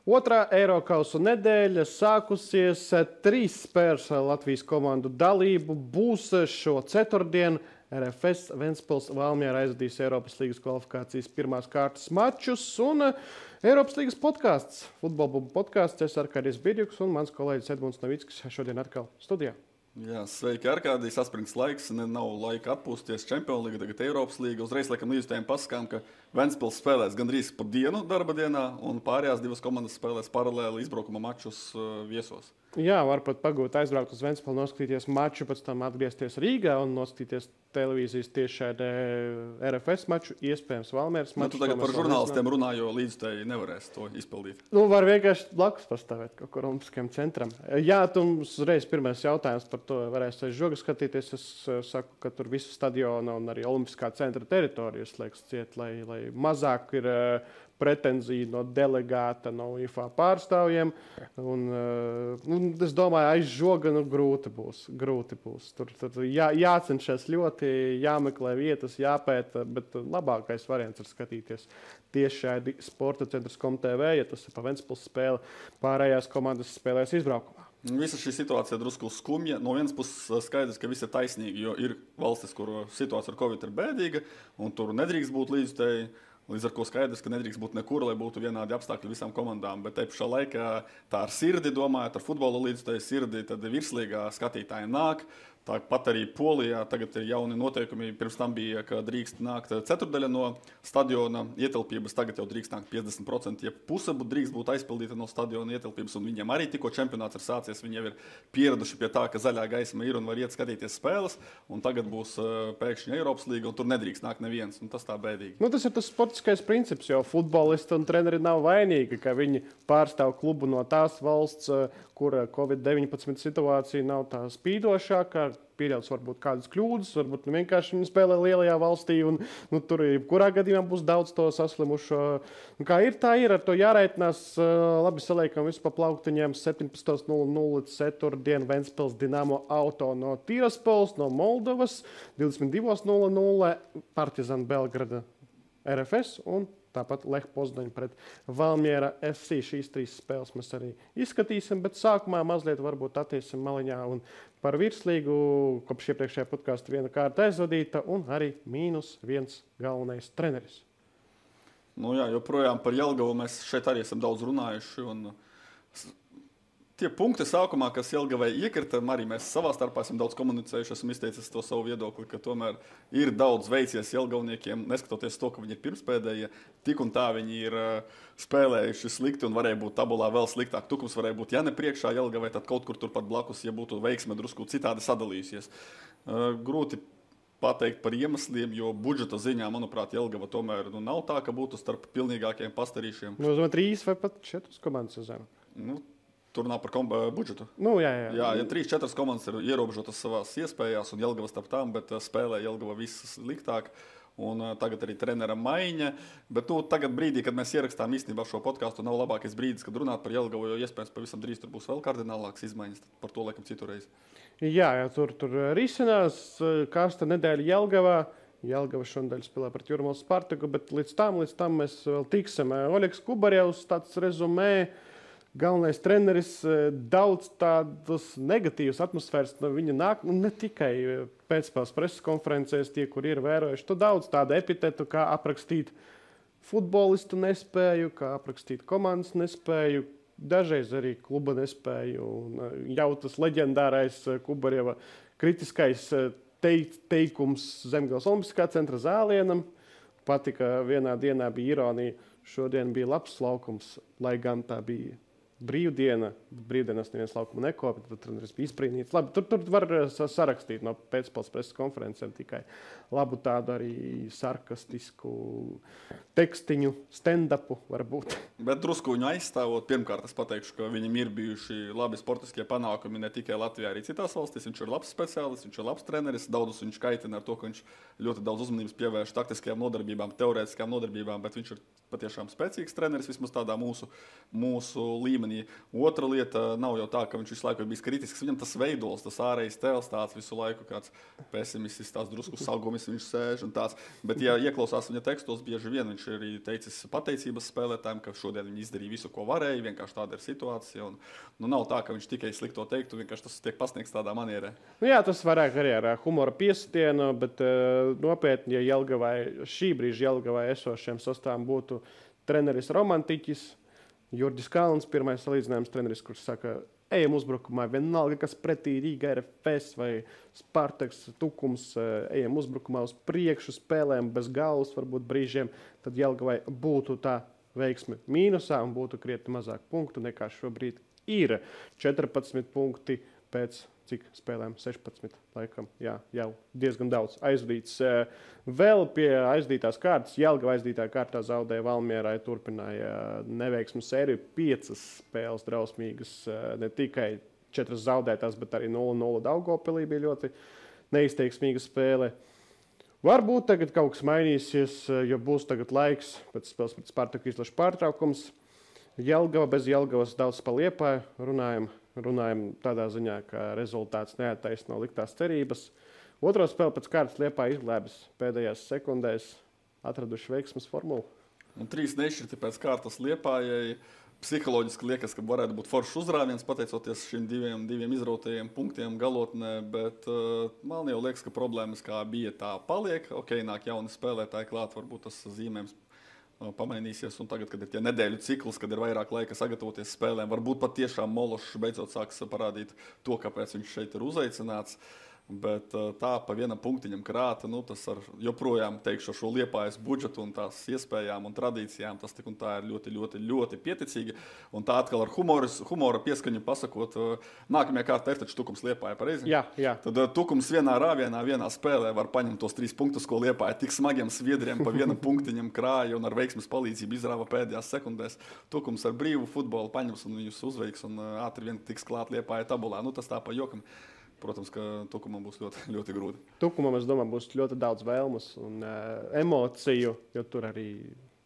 Otrā Eirokausa nedēļa sākusies. 3 spēles Latvijas komandu dalību būs šo ceturtdienu. RFS Ventspils Valmiera aizvadīs Eiropas līgas kvalifikācijas pirmās kārtas mačus un Eiropas līgas podkāsts, futbolbubu podkāsts. Es Arkādijs Birjuks un mans kolēģis Edmunds Novickis šodien atkal studijā. Jā, sveiki, Arkādijs. Saspringts laiks, nav laika atpūsties. Čempionu līga, tagad Eiropas līga. Uzreiz laikam līdzutējiem pasakām, ka Ventspils spēlēs gandrīz pa dienu darba dienā un pārējās divas komandas spēlēs paralēli izbraukuma mačus viesos. Jā, var pat pagūt aizbraukt uz Ventspilu, noskatīties maču, pēc tam atgriezties Rīgā un noskatīties televīzijas tiešraidē RFS maču, iespējams Valmieras maču. Tu tagad par žurnālistiem runā, jo līdzutēji nevarēs to izpildīt. Var vienkārši blakus pastāvēt kaut kur Olimpiskajam centram. Jā, tu mums uzreiz pirmais jautājums par to varēs aiz žoga skatīties. Es saku, ka tur visu stadionu un arī Olimpiskā centra teritoriju slēgs ciet, lai mazāk ir pretenzija no delegāta, no IFA pārstāvjiem. Un es domāju, aiz žoga grūti būs. Tur jācenšas ļoti, jāmeklē vietas, jāpēta, bet labākais variants ir skatīties tieši Sporta centrs.tv, ja tas ir pa Ventspils spēle, pārējās komandas spēlēs izbraukumā. Visa šī situācija drusku skumja. No vienas puses skaidrs, ka viss ir taisnīgi, jo ir valstis, kur situācija ar Covid ir bēdīga, un tur nedrīkst būt līdzutēji. Līdz ar to skaidrs, ka nedrīkst būt nekur, lai būtu vienādi apstākļi visām komandām. Bet te pašā laikā tā ar sirdi domājot, ar futbola līdzutēju sirdi, tad virslīgā skatītāji nāk. Tāpat arī Polijā tagad ir jauni noteikumi. Pirms tam bija, ka drīkst nākt ceturdaļa no stadiona ietilpības. Tagad jau drīkst nākt 50%, ja puse drīkst būt aizpildīta no stadiona ietilpības. Un viņiem arī tikko čempionāts ir sācies. Viņi jau ir pieraduši pie tā, ka zaļā gaisma ir un var iet skatīties spēles. Un tagad būs pēkšņi Eiropas līga un tur nedrīkst nākt neviens. Un tas tā bēdīgi. Tas ir tas sportiskais princips, jo futbolisti un treneri nav vainīgi, ka viņi pārstāv klubu no tās valsts, kur Covid-19 situācija nav tā spīdošākā. Pieļauts varbūt kādas kļūdas, varbūt vienkārši viņi spēlē lielajā valstī un tur jebkurā gadījumā būs daudz to saslimušo. Kā ir, tā ir, ar to jāreitinās. Labi, saliekam visu pa plauktiņiem. 17.00 ceturtdien Ventspils Dinamo Auto no Tiraspols, no Moldovas. 22.00 Partizan Belgrada RFS un tāpat Lech Poznaņa pret Valmiera FC. Šīs 3 spēles mēs arī izskatīsim, bet sākumā mazliet varbūt attiesim maliņā un par virslīgu. Kopš iepriekšējā podkāsta viena kārta aizvadīta un arī -1 galvenais treneris. Jā, joprojām par Jelgavu mēs šeit arī esam daudz runājuši. Un tie punkti sākumā, kas Jelgavai iekrita, arī mēs savā starpā esam daudz komunicējuši, esam izteicis to savu viedokli, ka tomēr ir daudz veicies Jelgavniekiem, neskatoties to, ka viņi ir pirmspēdējie, tik un tā viņi ir spēlējuši slikti un varēja būt tabulā vēl sliktāk. Tukums varēja būt, ja ne priekšā Jelgavai, tad kaut kur turpat blakus, ja būtu veiksme drusku citādi sadalījusies. Grūti pateikt par iemesliem, jo budžeta ziņā, manuprāt, Jelgava tomēr nav tā, ka būtu starp pilnīgākiem pastarīšiem. 3 vai pat 4 komandas uz zemi. Tur nav par budžetu. Jā, ja 3-4 komandas ir ierobežotas savās iespējās un Jelgava starp tām, bet spēlē Jelgava viss sliktāk. Un tagad arī trenera maiņa. Bet tagad brīdī, kad mēs ierakstām īstenībā šo podkāstu, nav labākais brīdis, kad runāt par Jelgavu, jo iespējams pavisam drīz tur būs vēl kardinālākas izmaiņas. Par to laikam citurreiz. Jā, tur risinās karsta nedēļa Jelgavā. Jelgava šonadēļ spēlē pret Jūrmālas Spartaku, bet līdz tam mēs vēl tiksim. Oļegs Kubarjevs, tāds rezumē. Galvenais treneris, daudz tādas negatīvas atmosfēras no viņa nāk, ne tikai pēcspēles preses konferencēs, tie, kur ir vērojuši. Tu daudz tādu epitetu, kā aprakstīt futbolistu nespēju, kā aprakstīt komandas nespēju, dažreiz arī kluba nespēju. Un jau tas leģendārais Kubarjeva kritiskais teikums Zemgales Olimpiskā centra zālienam. Patika, vienā dienā bija ironija, šodien bija labs laukums, lai gan tā bija brīvdiena. Brīvdienās neviens laukumu nekopja, tad treneris bija izbrīnīts. Labi, tur var sarakstīt no pēcspēles preses konferencēm tikai labu tādu arī sarkastisku tekstiņu, stand-upu varbūt. Bet drusku viņu aizstāvot, pirmkārt es pateikšu, ka viņam ir bijuši labi sportiskie panākumi ne tikai Latvijā, arī citās valstīs. Viņš ir labs speciālists, viņš ir labs treneris. Daudzus viņš kaitina ar to, ka viņš ļoti daudz uzmanības pievērš taktiskajām nodarbībām, teorētiskajām nodarbībām, bet viņš ir patiešām spēcīgs treneris, vismaz tādā mūsu līmenī. Otra lieta nav jau tā, ka viņš visu laiku ir bijis kritisks. Viņam tas veidols, tas ārējais tēls tāds visu laiku, kāds pesimists, tās drusku salgumis viņš sēž un tāds. Bet, ja ieklausās viņa tekstos, bieži vien viņš viņš ir arī teicis pateicības spēlētājiem, ka šodien viņi izdarīja visu, ko varēja. Vienkārši tāda ir situācija. Un, nav tā, ka viņš tikai slikto teiktu, vienkārši tas tiek pasniegts tādā manierē. Jā, tas varētu arī ar humora piesitienu, bet nopietni, ja Jelgavai, šī brīža Jelgavai esošiem sastāvam būtu treneris romantiķis, Jurģis Kalns, pirmais salīdzinājums treneris, kurš saka, ejam uzbrukumā, vienalga, kas pretī Rīga RFS vai Spartaks, Tukums, ejam uzbrukumā uz priekšu, spēlēm bez galvas, varbūt brīžiem, tad Jelgavai būtu tā veiksme mīnusā un būtu krietni mazāk punktu nekā šobrīd ir. 14 punkti pēc cik spēlēm 16, laikam, jā, jau diezgan daudz aizdīts. Vēl pie aizdītās kārtas, Jelgava aizdītā kārtā zaudēja Valmierai, turpināja neveiksmu sēriju, 5 spēles drausmīgas, ne tikai 4 zaudētās, bet arī 0-0 Daugavpilī bija ļoti neizteiksmīga spēle. Varbūt tagad kaut kas mainīsies, jo būs tagad laiks pēc spēles pret Spartaku izlašu pārtraukums. Jelgava bez Jelgavas daudz pa Liepāju runājam tādā ziņā, ka rezultāts neattaisno liktās cerības. Otro spēli pēc kārtas Liepāja izglēbis pēdējās sekundēs, atraduši veiksmes formulu. Un 3 nešķirti pēc kārtas Liepājai. Psiholoģiski liekas, ka varētu būt foršs uzrāviens, pateicoties šiem diviem izrautajiem punktiem galotnē, bet man jau liekas, ka problēmas kā bija tā paliek. Ok, nāk jauni spēlētāji klāt, varbūt tas zīmējums pamainīsies, un tagad, kad ir tie nedēļu cikls, kad ir vairāk laika sagatavoties spēlēm, varbūt pat tiešām Mološs beidzot sāks parādīt to, kāpēc viņš šeit ir uzaicināts. Bet tā pa vienam punktiņam krāta, tas ar joprojām teikšu šo Liepājas budžetu un tās iespējām un tradīcijām, tas tik un tā ir ļoti, ļoti, ļoti pieticīgi. Un tā atkal ar humora pieskaņu pasakot, nākamajā kārtā ir taču Tukums Liepāja, pareizi? Jā. Tad Tukums vienā rāvienā, vienā spēlē var paņemt tos 3 punktus, ko Liepāja tik smagiem sviedriem pa vienam punktiņam krāja un ar veiksmes palīdzību izrāva pēdējās sekundēs. Tukums ar brīvu futbolu paņems un viņus uzveiks un ātri vien tiks klāt Liepāja tabulā. Tas tā pa jokam. Protams, ka Tukumam būs ļoti, ļoti grūti. Tukumam, es domāju, būs ļoti daudz vēlmes un emociju, jo tur arī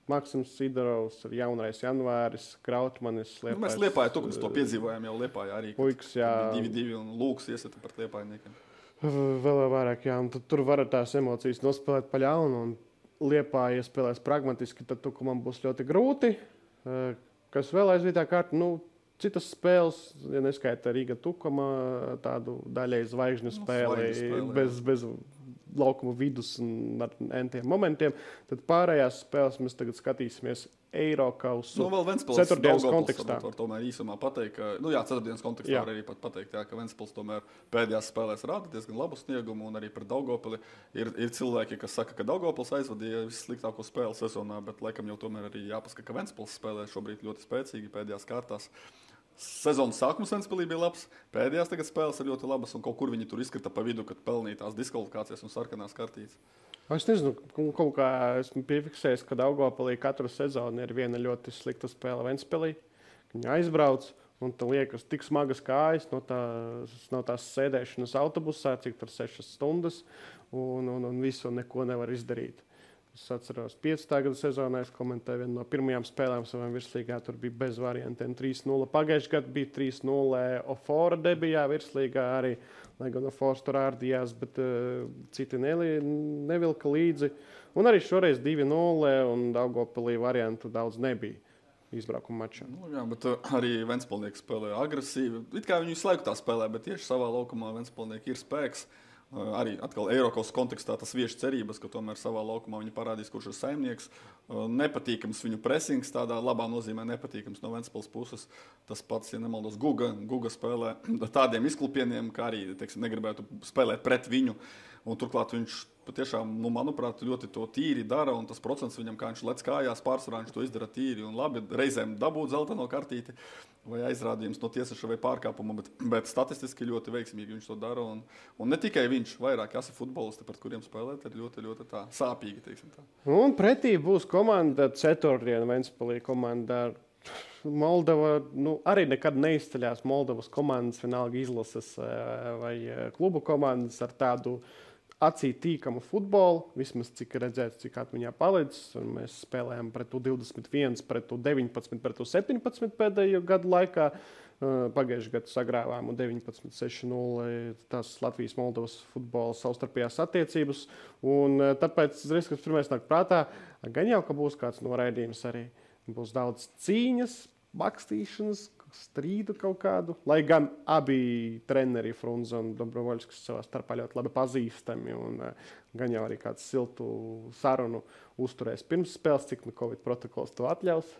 Maksims Sidorovs, jaunais Janvāris, Krautmanis. Mēs Liepāja Tukums to piedzīvojām jau Liepāja arī. Puikas, jā. 2-2 un Lūks iesita par Liepājniekiem. Vēl vairāk, jā. Un tur var tās emocijas nospēlēt pa ļaunu un Liepāja spēlēs pragmatiski, tad Tukumam būs ļoti grūti. Kas vēl aizvītā kārta, citas spēles, ja neskaita Rīga Tukuma, tādu daļai zvaigžņu spēli, bez laukuma vidus un ar entiem momentiem, tad pārējās spēles mēs tagad skatīsimies Eirokausu ceturtdienas kontekstā. Var tomēr īsumā pateikt, ka, ceturtdienas kontekstā var arī pat pateikt, ka Ventspils tomēr pēdējās spēlēs rāda diezgan labu sniegumu un arī pret Daugavpili ir cilvēki, kas saka, ka Daugavpils aizvadīja vissliktāko spēli sezonā, bet laikam jau tomēr arī jāpasaka, ka Ventspils spēlē šobrīd ļoti spēcīgi pēdējās kārtās. Sezonas sākums Ventspilī bija labs, pēdējās tagad spēles ir ļoti labas un kaut kur viņi tur izkrita pa vidu, kad pelnīja tās diskvalifikācijas un sarkanās kartītes. Es nezinu, kaut kā esmu piefiksējis, ka Daugavpilī katru sezonu ir viena ļoti slikta spēle Ventspilī. Viņi aizbrauc un tā liekas tik smagas kājas no tās sēdēšanas autobusā, cik tur 6 stundas un visu neko nevar izdarīt. Es atceros, 15. gada sezonā es komentēju vienu no pirmajām spēlēm savām virslīgā. Tur bija bez variantiem 3-0. Pagājušajā gadā bija 3-0 Ofora debijā virslīgā arī, lai gan Ofors tur ārdījās, bet citi nevilka līdzi. Un arī šoreiz 2-0 un Daugavpilī variantu daudz nebija izbraukuma mačā. Jā, bet arī Ventspilnieki spēlē agresīvi. It kā viņi visu laiku tā spēlē, bet tieši savā laukumā Ventspilnieki ir spēks. Arī atkal Eiropas kontekstā tas vieš cerības, ka tomēr savā laukumā viņi parādīs, kurš ir saimnieks. Nepatīkams viņu presings, tādā labā nozīmē nepatīkams no Ventspils puses. Tas pats, ja nemaldos, Guga spēlē tādiem izklupieniem, kā arī, negribētu spēlēt pret viņu. Un turklāt viņš patiešām, manuprāt, ļoti to tīri dara, un tas procents viņam, kā viņš lec kājās, pārsvarā viņš to izdara tīri un labi. Reizēm dabūt zeltaino kartīti vai aizrādījums no tiesneša vai pārkāpuma, bet statistiski ļoti veiksmīgi viņš to dara. Un ne tikai viņš, vairāk jāsi futbolisti, pret kuriem spēlēt, ir ļoti, ļoti tā sāpīgi, teiksim tā. Un pretī būs komanda ceturtdiena Ventspilī komanda ar Moldova, arī nekad neizceļās Moldovas komandas, vienalga izlases vai klubu komandas ar tādu acī tīkamu futbolu, vismaz cik redzēts, cik atmiņā palicis. Un mēs spēlējām pret 21, pret 19, pret 17 pēdējo gadu laikā. Pagājušajā gadā sagrāvām 19-6-0 tās Latvijas-Moldovas futbola savstarpējās attiecības. Un tāpēc, kas pirmais nāk prātā, gan jau, ka būs kāds noraidījums arī. Būs daudz cīņas, bakstīšanas, strīdu kaut kādu. Lai gan abi treneri, Frunze un Dobrovoļskis, savā starpā ļoti labi pazīstami. Un gan jau arī kāds siltu sarunu uzturēs pirms spēles, cik Covid protokols to atļaus.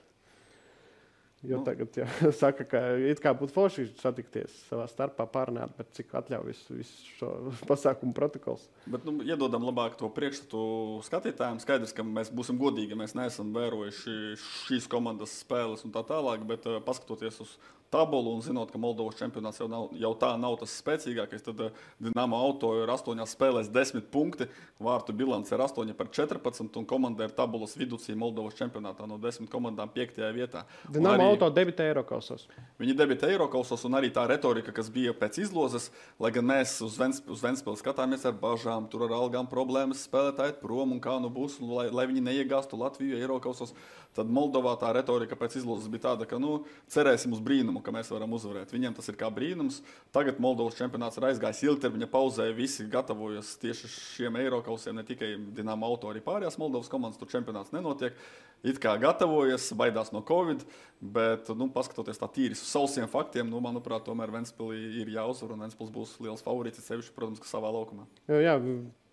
Jo tagad saka, ka it kā būtu forši satikties savā starpā, pārunāt, bet cik atļauj visu šo pasākumu protokols. Bet iedodam labāk to priekšstatu skatītājiem. Skaidrs, ka mēs būsim godīgi, mēs neesam vērojuši šīs komandas spēles un tā tālāk, bet paskatoties uz tabulu un zinot, ka Moldovas čempionāts jau tā nav tas spēcīgākais, tad Dinamo Auto ir 8 spēlēs 10 punkti, vārtu bilance ir 8/14 un komanda ir tabulas viducī Moldovas čempionātā no 10 komandām 5. vietā. Dinamo Auto debitē Eirokausos. Viņi debitē Eirokausos un arī tā retorika, kas bija pēc izlozes, lai gan mēs uz Ventspili skatāmies ar bažām, tur ar algām problēmas, spēlētāji prom un kā nu būs, lai viņi neiegāstu Latviju Eirokausos. Tad Moldovā tā retorika pēc izlozes bija tāda, ka cerēsim uz brīnumu, ka mēs varam uzvarēt. Viņiem tas ir kā brīnums. Tagad Moldovas čempionāts ir aizgājis ilgtermiņa pauzē, visi gatavojas tieši šiem Eirokausiem, ne tikai Dinamo Auto, arī pārējās Moldovas komandas, tur čempionāts nenotiek. It kā gatavojas, baidās no Covid, bet, paskatoties tā tīri uz sausiem faktiem, manuprāt, tomēr Ventspilī ir jāuzvar un Ventspils būs liels favorīts, sevišķi, protams, ka savā laukumā. Jā.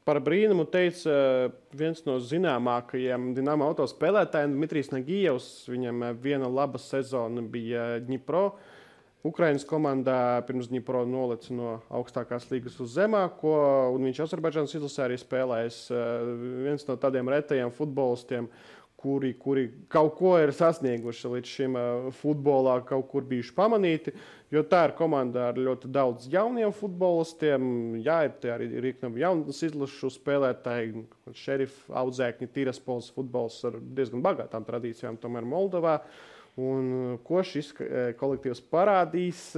Par brīnumu teica viens no zināmākajiem Dinamo Auto spēlētājiem, Dmitrijs Nagijevs. Viņam viena laba sezona bija Dņipro. Ukrainas komandā pirms Dņipro nolica no augstākās līgas uz zemāko, un viņš Azerbaidžānas izlasē arī spēlējis. Viens no tādiem retajiem futbolistiem, kuri kaut ko ir sasnieguši līdz šim futbolā, kaut kur bijuši pamanīti. Jo tā ir komanda ar ļoti daudz jauniem futbolistiem. Jā, ir arī jaunas izlašu spēlētāji, Šerif audzēkņi, Tiraspols futbols ar diezgan bagātām tradīcijām tomēr Moldovā. Un ko šis kolektīvs parādīs,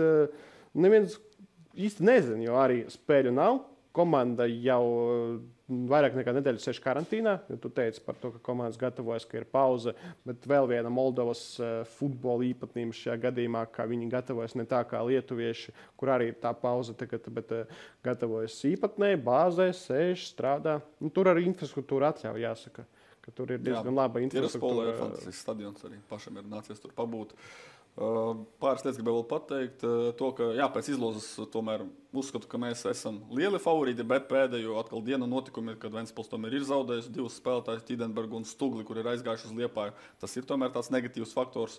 neviens īsti nezina, jo arī spēļu nav. Komanda jau vairāk nekā nedēļu sēž karantīnā. Tu teici par to, ka komandas gatavojas, ka ir pauze, bet vēl viena Moldovas futbola īpatnība šajā gadījumā, ka viņi gatavojas ne tā kā lietuvieši, kur arī ir tā pauze tagad, bet gatavojas īpatnēji, bāzē, sēž, strādā. Tur arī infrastruktūra atļauj, jāsaka, ka tur ir diezgan laba infrastruktūra. Tiraspolē ir fantastisks stadions arī, pašam ir nācies tur pabūt. Pāris lietas gribēju vēl pateikt. To, ka pēc izlozes tomēr uzskatu, ka mēs esam lieli favorīti, bet pēdējo atkal dienu notikumi, kad Ventspils tomēr ir zaudējis 2 spēlētājus, Tidenbergu un Stugli, kur ir aizgājuši uz Liepāju. Tas ir tomēr tāds negatīvs faktors.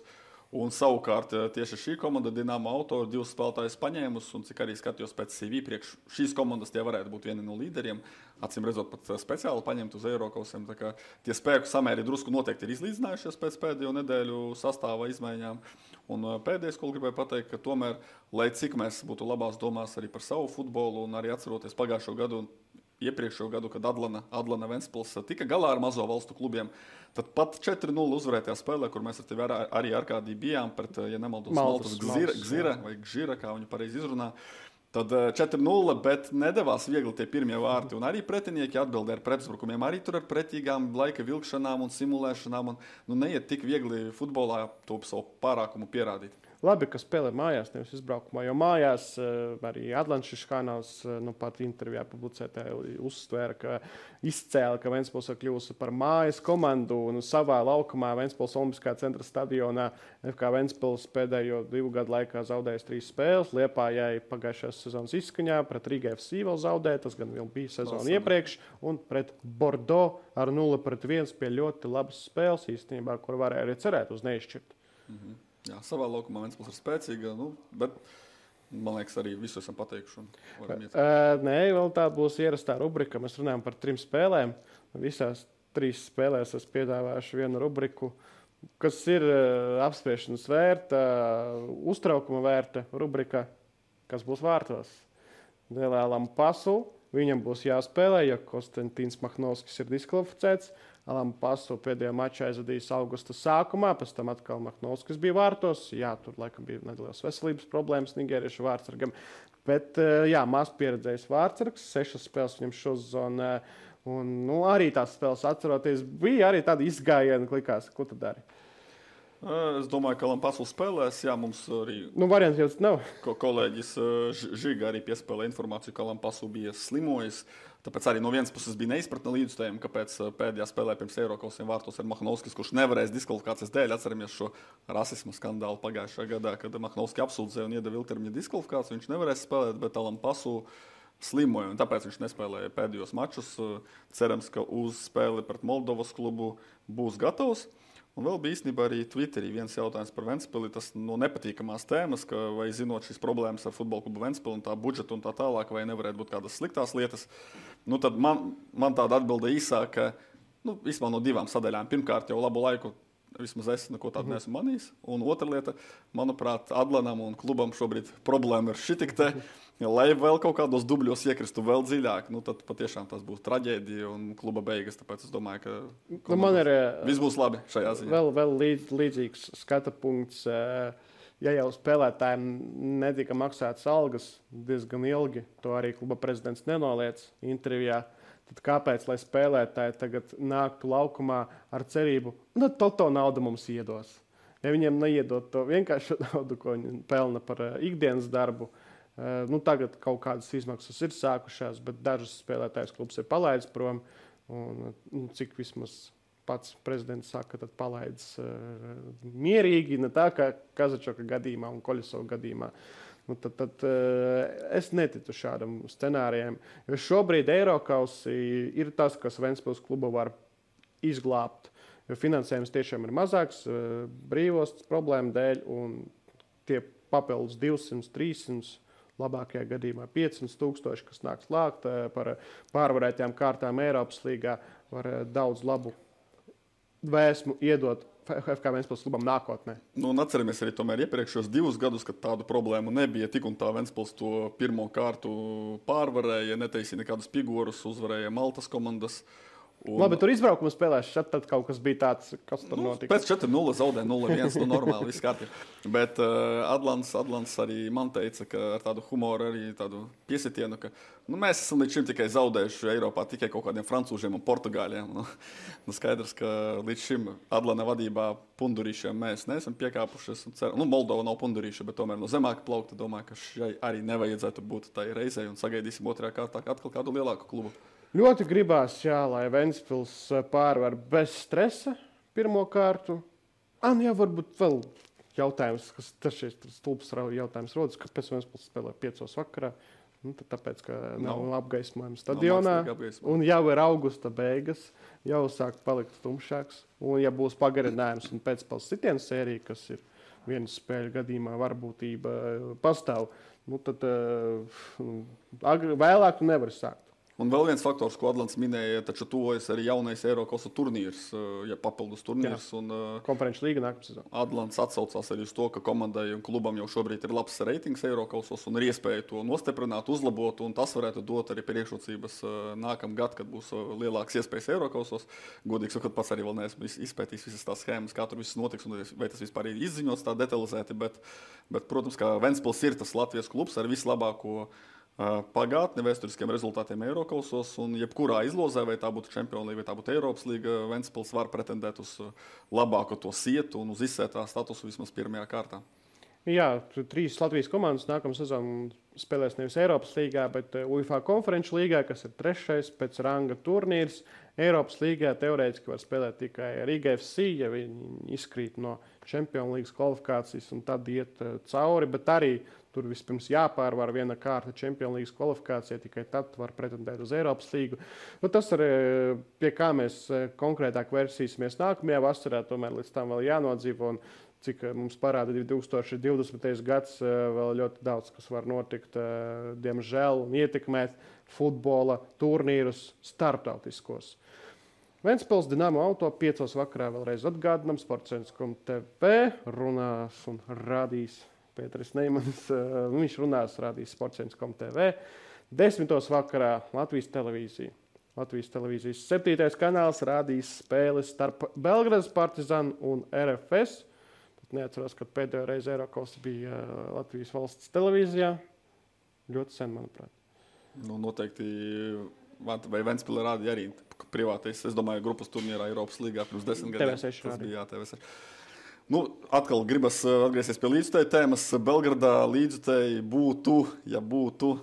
Un savukārt tieši šī komanda Dinamo Auto ir 2 spēlētājus paņēmusi, un cik arī skatījos pēc CV priekš šīs komandas, tie varētu būt vieni no līderiem. Acīm redzot, pat speciāli paņemt uz Eirokausiem. Tā kā tie spēku samēri drusku noteikti ir izlīdzinājušies pēc pēdējo nedēļu sastāva izmaiņām. Un pēdējais, ko gribēju pateikt, ka tomēr, lai cik mēs būtu labās domās arī par savu futbolu un arī atceroties pagājušo gadu un iepriekšējo gadu, kad Adlana Ventspils tika galā ar mazo valstu klubiem, tad pat 4-0 uzvarētajā spēlē, kur mēs ar tevi arī Arkādī bijām pret, ja nemaldos, Maltas Gzira vai Gžira, kā viņi pareizi izrunā, tad 4-0, bet nedavās viegli tie pirmie vārti. Un arī pretinieki atbildēja ar pretuzbrukumiem, arī tur ar pretīgām laika vilkšanām un simulēšanām. Un, neiet tik viegli futbolā to savu pārākumu pierādīt. Labi, ka spēlē mājās, nevis izbraukumā, jo mājās arī Atlantiskais kanāls pat intervijā publicētā uzsvēra, ka izcēla, ka Ventspils ir kļuvusi par mājas komandu un savā laukumā Ventspils Olimpiskā centra stadionā FK Ventspils pēdējo 2 gadu laikā zaudējis 3 spēles. Liepājai pagājušās sezonas izskaņā pret Riga FC vēl zaudēja, tas gan vēl bija sezona iepriekš, un pret Bordeaux ar 0-1 pie ļoti labas spēles īstenībā, kur varēja arī cerēt uz neizšķirt. Jā, savā laukumā Ventspils ir spēcīga, bet man liekas, arī visu esam pateikuši. Nē, vēl tā būs ierastā rubrika. Mēs runājam par 3 spēlēm. Visās 3 spēlēs es piedāvāšu vienu rubriku, kas ir apspriešanas vērta, uztraukuma vērta rubrika, kas būs vārtos. Dēlēlam pasu, viņam būs jāspēlē, jo Konstantīns Mahnovskis ir diskvalificēts. Alam Pasu pēdējā mačā aizvadījis augusta sākumā, pēc tam atkal Mahnovskis bija vārtos. Jā, tur laikam bija nedēļas veselības problēmas nigēriešu vārtsargam. Bet maz pieredzējis vārtsargs, 6 spēles viņam šosezonā. Un arī tās spēles atceroties, bija arī tādi izgājieni, likās, ko tu dari. Es domāju, ka Lampasu spēlēs. Jā, mums arī Variants jau nav. kolēģis Žiga arī piespēlēja informāciju, ka Lampasu bija slimojis. Tāpēc arī no vienas puses bija neizpratne līdzstājiem, kāpēc pēdējā spēlē pirms Eirokausiem vārtos ir Mahnovskis, kurš nevarēs diskvalifikācijas dēļ. Atceramies šo rasisma skandālu pagājušajā gadā, kad Mahnovski apsūdzēja un iedeva ilgtermiņa diskvalifikāciju. Viņš nevarēs spēlēt, bet Lampasu slimoja, un tāpēc viņš nespēlēja pēdējos mačus. Cerams, ka uz spēli pret Moldovas klubu būs gatavs. Un vēl bija īstenībā arī Twitterī viens jautājums par Ventspili. Tas no nepatīkamās tēmas, ka vai zinot šīs problēmas ar futbola klubu Ventspili un tā budžetu un tā tālāk, vai nevarētu būt kādas sliktās lietas. Tad man tāda atbilde īsāka, vismaz no divām sadaļām. Pirmkārt, jau labu laiku vismaz es neko tādu neesmu manījis. Un otra lieta, manuprāt, Adlanam un klubam šobrīd problēma ir šitik te. Lai vēl kaut kādos dubļos iekristu vēl dziļāk, tad patiešām tas būs traģēdija un kluba beigas. Tāpēc es domāju, ka man ir viss būs labi šajā ziņā. Vēl līdzīgs skata punkts. Ja jau spēlētājiem netika maksātas algas diezgan ilgi, to arī kluba prezidents nenoliedz intervijā, tad kāpēc, lai spēlētāji tagad nāktu laukumā ar cerību, to naudu mums iedos? Ja viņiem neiedot to vienkārši naudu, ko viņi pelna par ikdienas darbu, tagad kaut kādas izmaksas ir sākušās, bet dažus spēlētājus klubs ir palaidis prom. Un cik vismaz pats prezidents saka, tad palaidis mierīgi, ne tā kā Kazačoka gadījumā un Koļasova gadījumā. Tad es neticu šādam scenārijam, jo šobrīd Eirokausi ir tas, kas Ventspils klubu var izglābt, jo finansējums tiešām ir mazāks brīvos problēmu dēļ, un tie papildus 200, 300, labākajā gadījumā 500,000, kas nāks lākt par pārvarētajām kārtām Eiropas līgā, var daudz labu vēsmu iedot FK Ventspils klubam nākotnē. Atceramies arī tomēr iepriekšējos 2 gadus, kad tādu problēmu nebija. Tik un tā Ventspils to pirmo kārtu pārvarēja, netaisīja nekādus figūrus, uzvarēja Maltas komandas. Labi, tur izbraukuma spēlēs, tad kaut kas bija tāds, kas tur notika. Pēc 4-0 zaudēja 0-1, normāli, viss kārtībā. Bet Adlants arī man teica, ka ar tādu humoru, arī tādu piesitienu, ka mēs esam līdz šim tikai zaudējuši Eiropā tikai kaut kādiem francūžiem un portugāļiem. Skaidrs, ka līdz šim Adlana vadībā pundurīšiem mēs neesam piekāpušies. Moldova nav pundurīša, bet tomēr no zemāka plaukta domāju, ka šai arī nevajadzētu būt tai reizei un sagaidīsim otrajā kārtā atkal kādu lielāku klubu. Ļoti gribās, lai Ventspils pārvar bez stresa pirmo kārtu. Varbūt vēl jautājums, kas tas ir stulbs jautājums rodas, kāpēc Ventspils spēlē 5 vakarā. Tāpēc, ka nav apgaismojums stadionā, un jau ir augusta beigas, jau sāk palikt tumšāks. Un ja būs pagarinājums un pēcpils sitienu sērija, kas ir vienas spēļu gadījumā varbūtība pastāv, tad vēlāk tu nevari sākt. Un vēl viens faktors, ko Adlants minēja, taču tuvojas arī jaunais Eirokausa turnīrs, papildus turnīrs. Konferenču līga nākamā sezonā. Adlants atsaucās arī uz to, ka komandai un klubam jau šobrīd ir labs reitings Eirokausos un ir iespēja to nostiprināt, uzlabot, un tas varētu dot arī priekšrocības nākamgad, kad būs lielāks iespējas Eirokausos. Godīgi sakot, pats arī vēl neesmu izpētījis visas tās schēmas, kā tur viss notiks un vai tas vispār ir izziņots tā detalizēti, bet protams, ka Ventspils ir tas Latvijas klubs ar vislabāko pagātni vēsturiskiem rezultātiem Eirokausos, un jebkurā izlozē, vai tā būtu Champions League, vai tā būtu Eiropas līga, Ventspils var pretendēt uz labāko to sietu un uz izsētā statusu vismaz pirmajā kārtā. Jā, 3 Latvijas komandas nākamā sezona spēlēs nevis Eiropas līgā, bet UEFA konferenču līgā, kas ir 3. pēc ranga turnīrs. Eiropas līgā teorētiski var spēlēt tikai Riga FC, ja viņi izkrīt no Champions League kvalifikācijas un tad iet cauri, bet arī tur vispirms jāpārvar viena kārta Champions League kvalifikācija, tikai tad var pretendēt uz Eiropas līgu. Tas arī pie kā mēs konkrētāk vērsīsimies nākamajā vasarā, tomēr līdz tam vēl jānodzīvo. Un cik mums parāda 2020. gads, vēl ļoti daudz, kas var notikt, diemžēl, un ietekmēt futbola turnīrus starptautiskos. Ventspils Dinamo Auto 5 vakarā vēlreiz atgādinām, Sportcentrs.tv runās un rādīs Pēteris Neimans, viņš runās, rādīs Sportcentrs.tv. 10 vakarā Latvijas televīzija. Latvijas televīzijas 7. kanāls rādīs spēles starp Belgradas Partizanu un RFS. Neatceros, kad pēdējo reizi Eirokausa bija Latvijas valsts televīzijā. Ļoti sen, manuprāt. Noteikti, vai Ventspilī rādīja arī privātais, es domāju, grupas turnīrā Eiropas līgā pirms 10 gadiem. TV6 rādīja. TV6. Nu, atkal gribas atgriezties pie līdzutēju tēmas. Belgradā līdzutēji būtu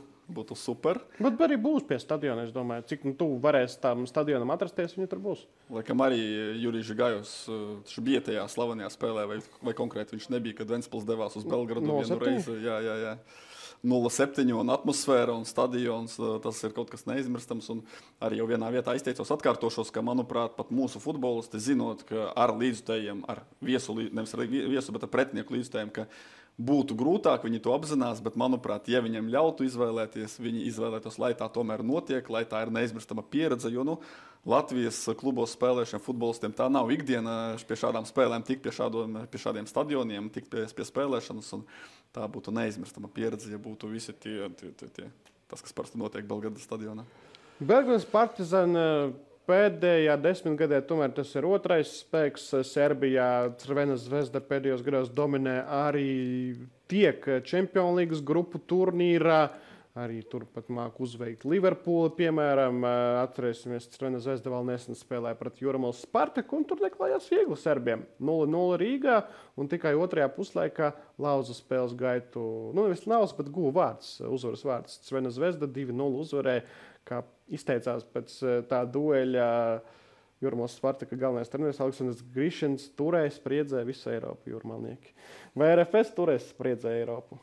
super. Bet arī būs pie stadiona, es domāju. Cik tuvu varēs tam stadionam atrasties, viņi tur būs. Laikam arī Jurijs Gajos bija tajā slavenajā spēlē, vai konkrēti viņš nebija, kad Ventspils devās uz Belgradu vienu reizi. Jā. 0-7 un atmosfēra un stadions, tas ir kaut kas neizmirstams. Un arī jau vienā vietā izteicos, atkārtošos, ka, manuprāt, pat mūsu futbolisti zinot, ka ar līdzutējiem, nevis ar viesu, bet ar pretinieku līdzutējiem, ka būtu grūtāk, viņi to apzinās, bet, manuprāt, ja viņiem ļautu izvēlēties, viņi izvēlētos, lai tā tomēr notiek, lai tā ir neizmirstama pieredze, jo, Latvijas klubos spēlēšiem futbolistiem tā nav ikdiena pie šādām spēlēm, tik pie šādiem stadioniem, tik pie spēlēšanas, un tā būtu neizmirstama pieredze, ja būtu visi tie tas, kas parasti notiek Belgradas stadionā. Belgradas Partizan pēdējā 10 gadē tomēr tas ir otrais spēks. Serbijā Crvena Zvezda pēdējos gados dominē arī tiek Champions League grupu turnīrā. Arī turpat māk uzveikt Liverpooli, piemēram. Atcerēsimies, Crvena Zvezda vēl nesen spēlēja pret Jūrmālas Spartaku, un tur neklājās viegli serbiem. 0-0 Rīgā, un tikai otrajā puslaikā lauza spēles gaitu. Nevis lauza, bet guva uzvaras vārds. Crvena Zvezda 2-0 uzvarēja, kā izteicās pēc tā dueļa Jūrmālas Spartaka galvenais treneris Aleksandrs Grišins turēs spriedzē visu Eiropu jūrmalnieki. Vai RFS turēs spriedzē Eiropu?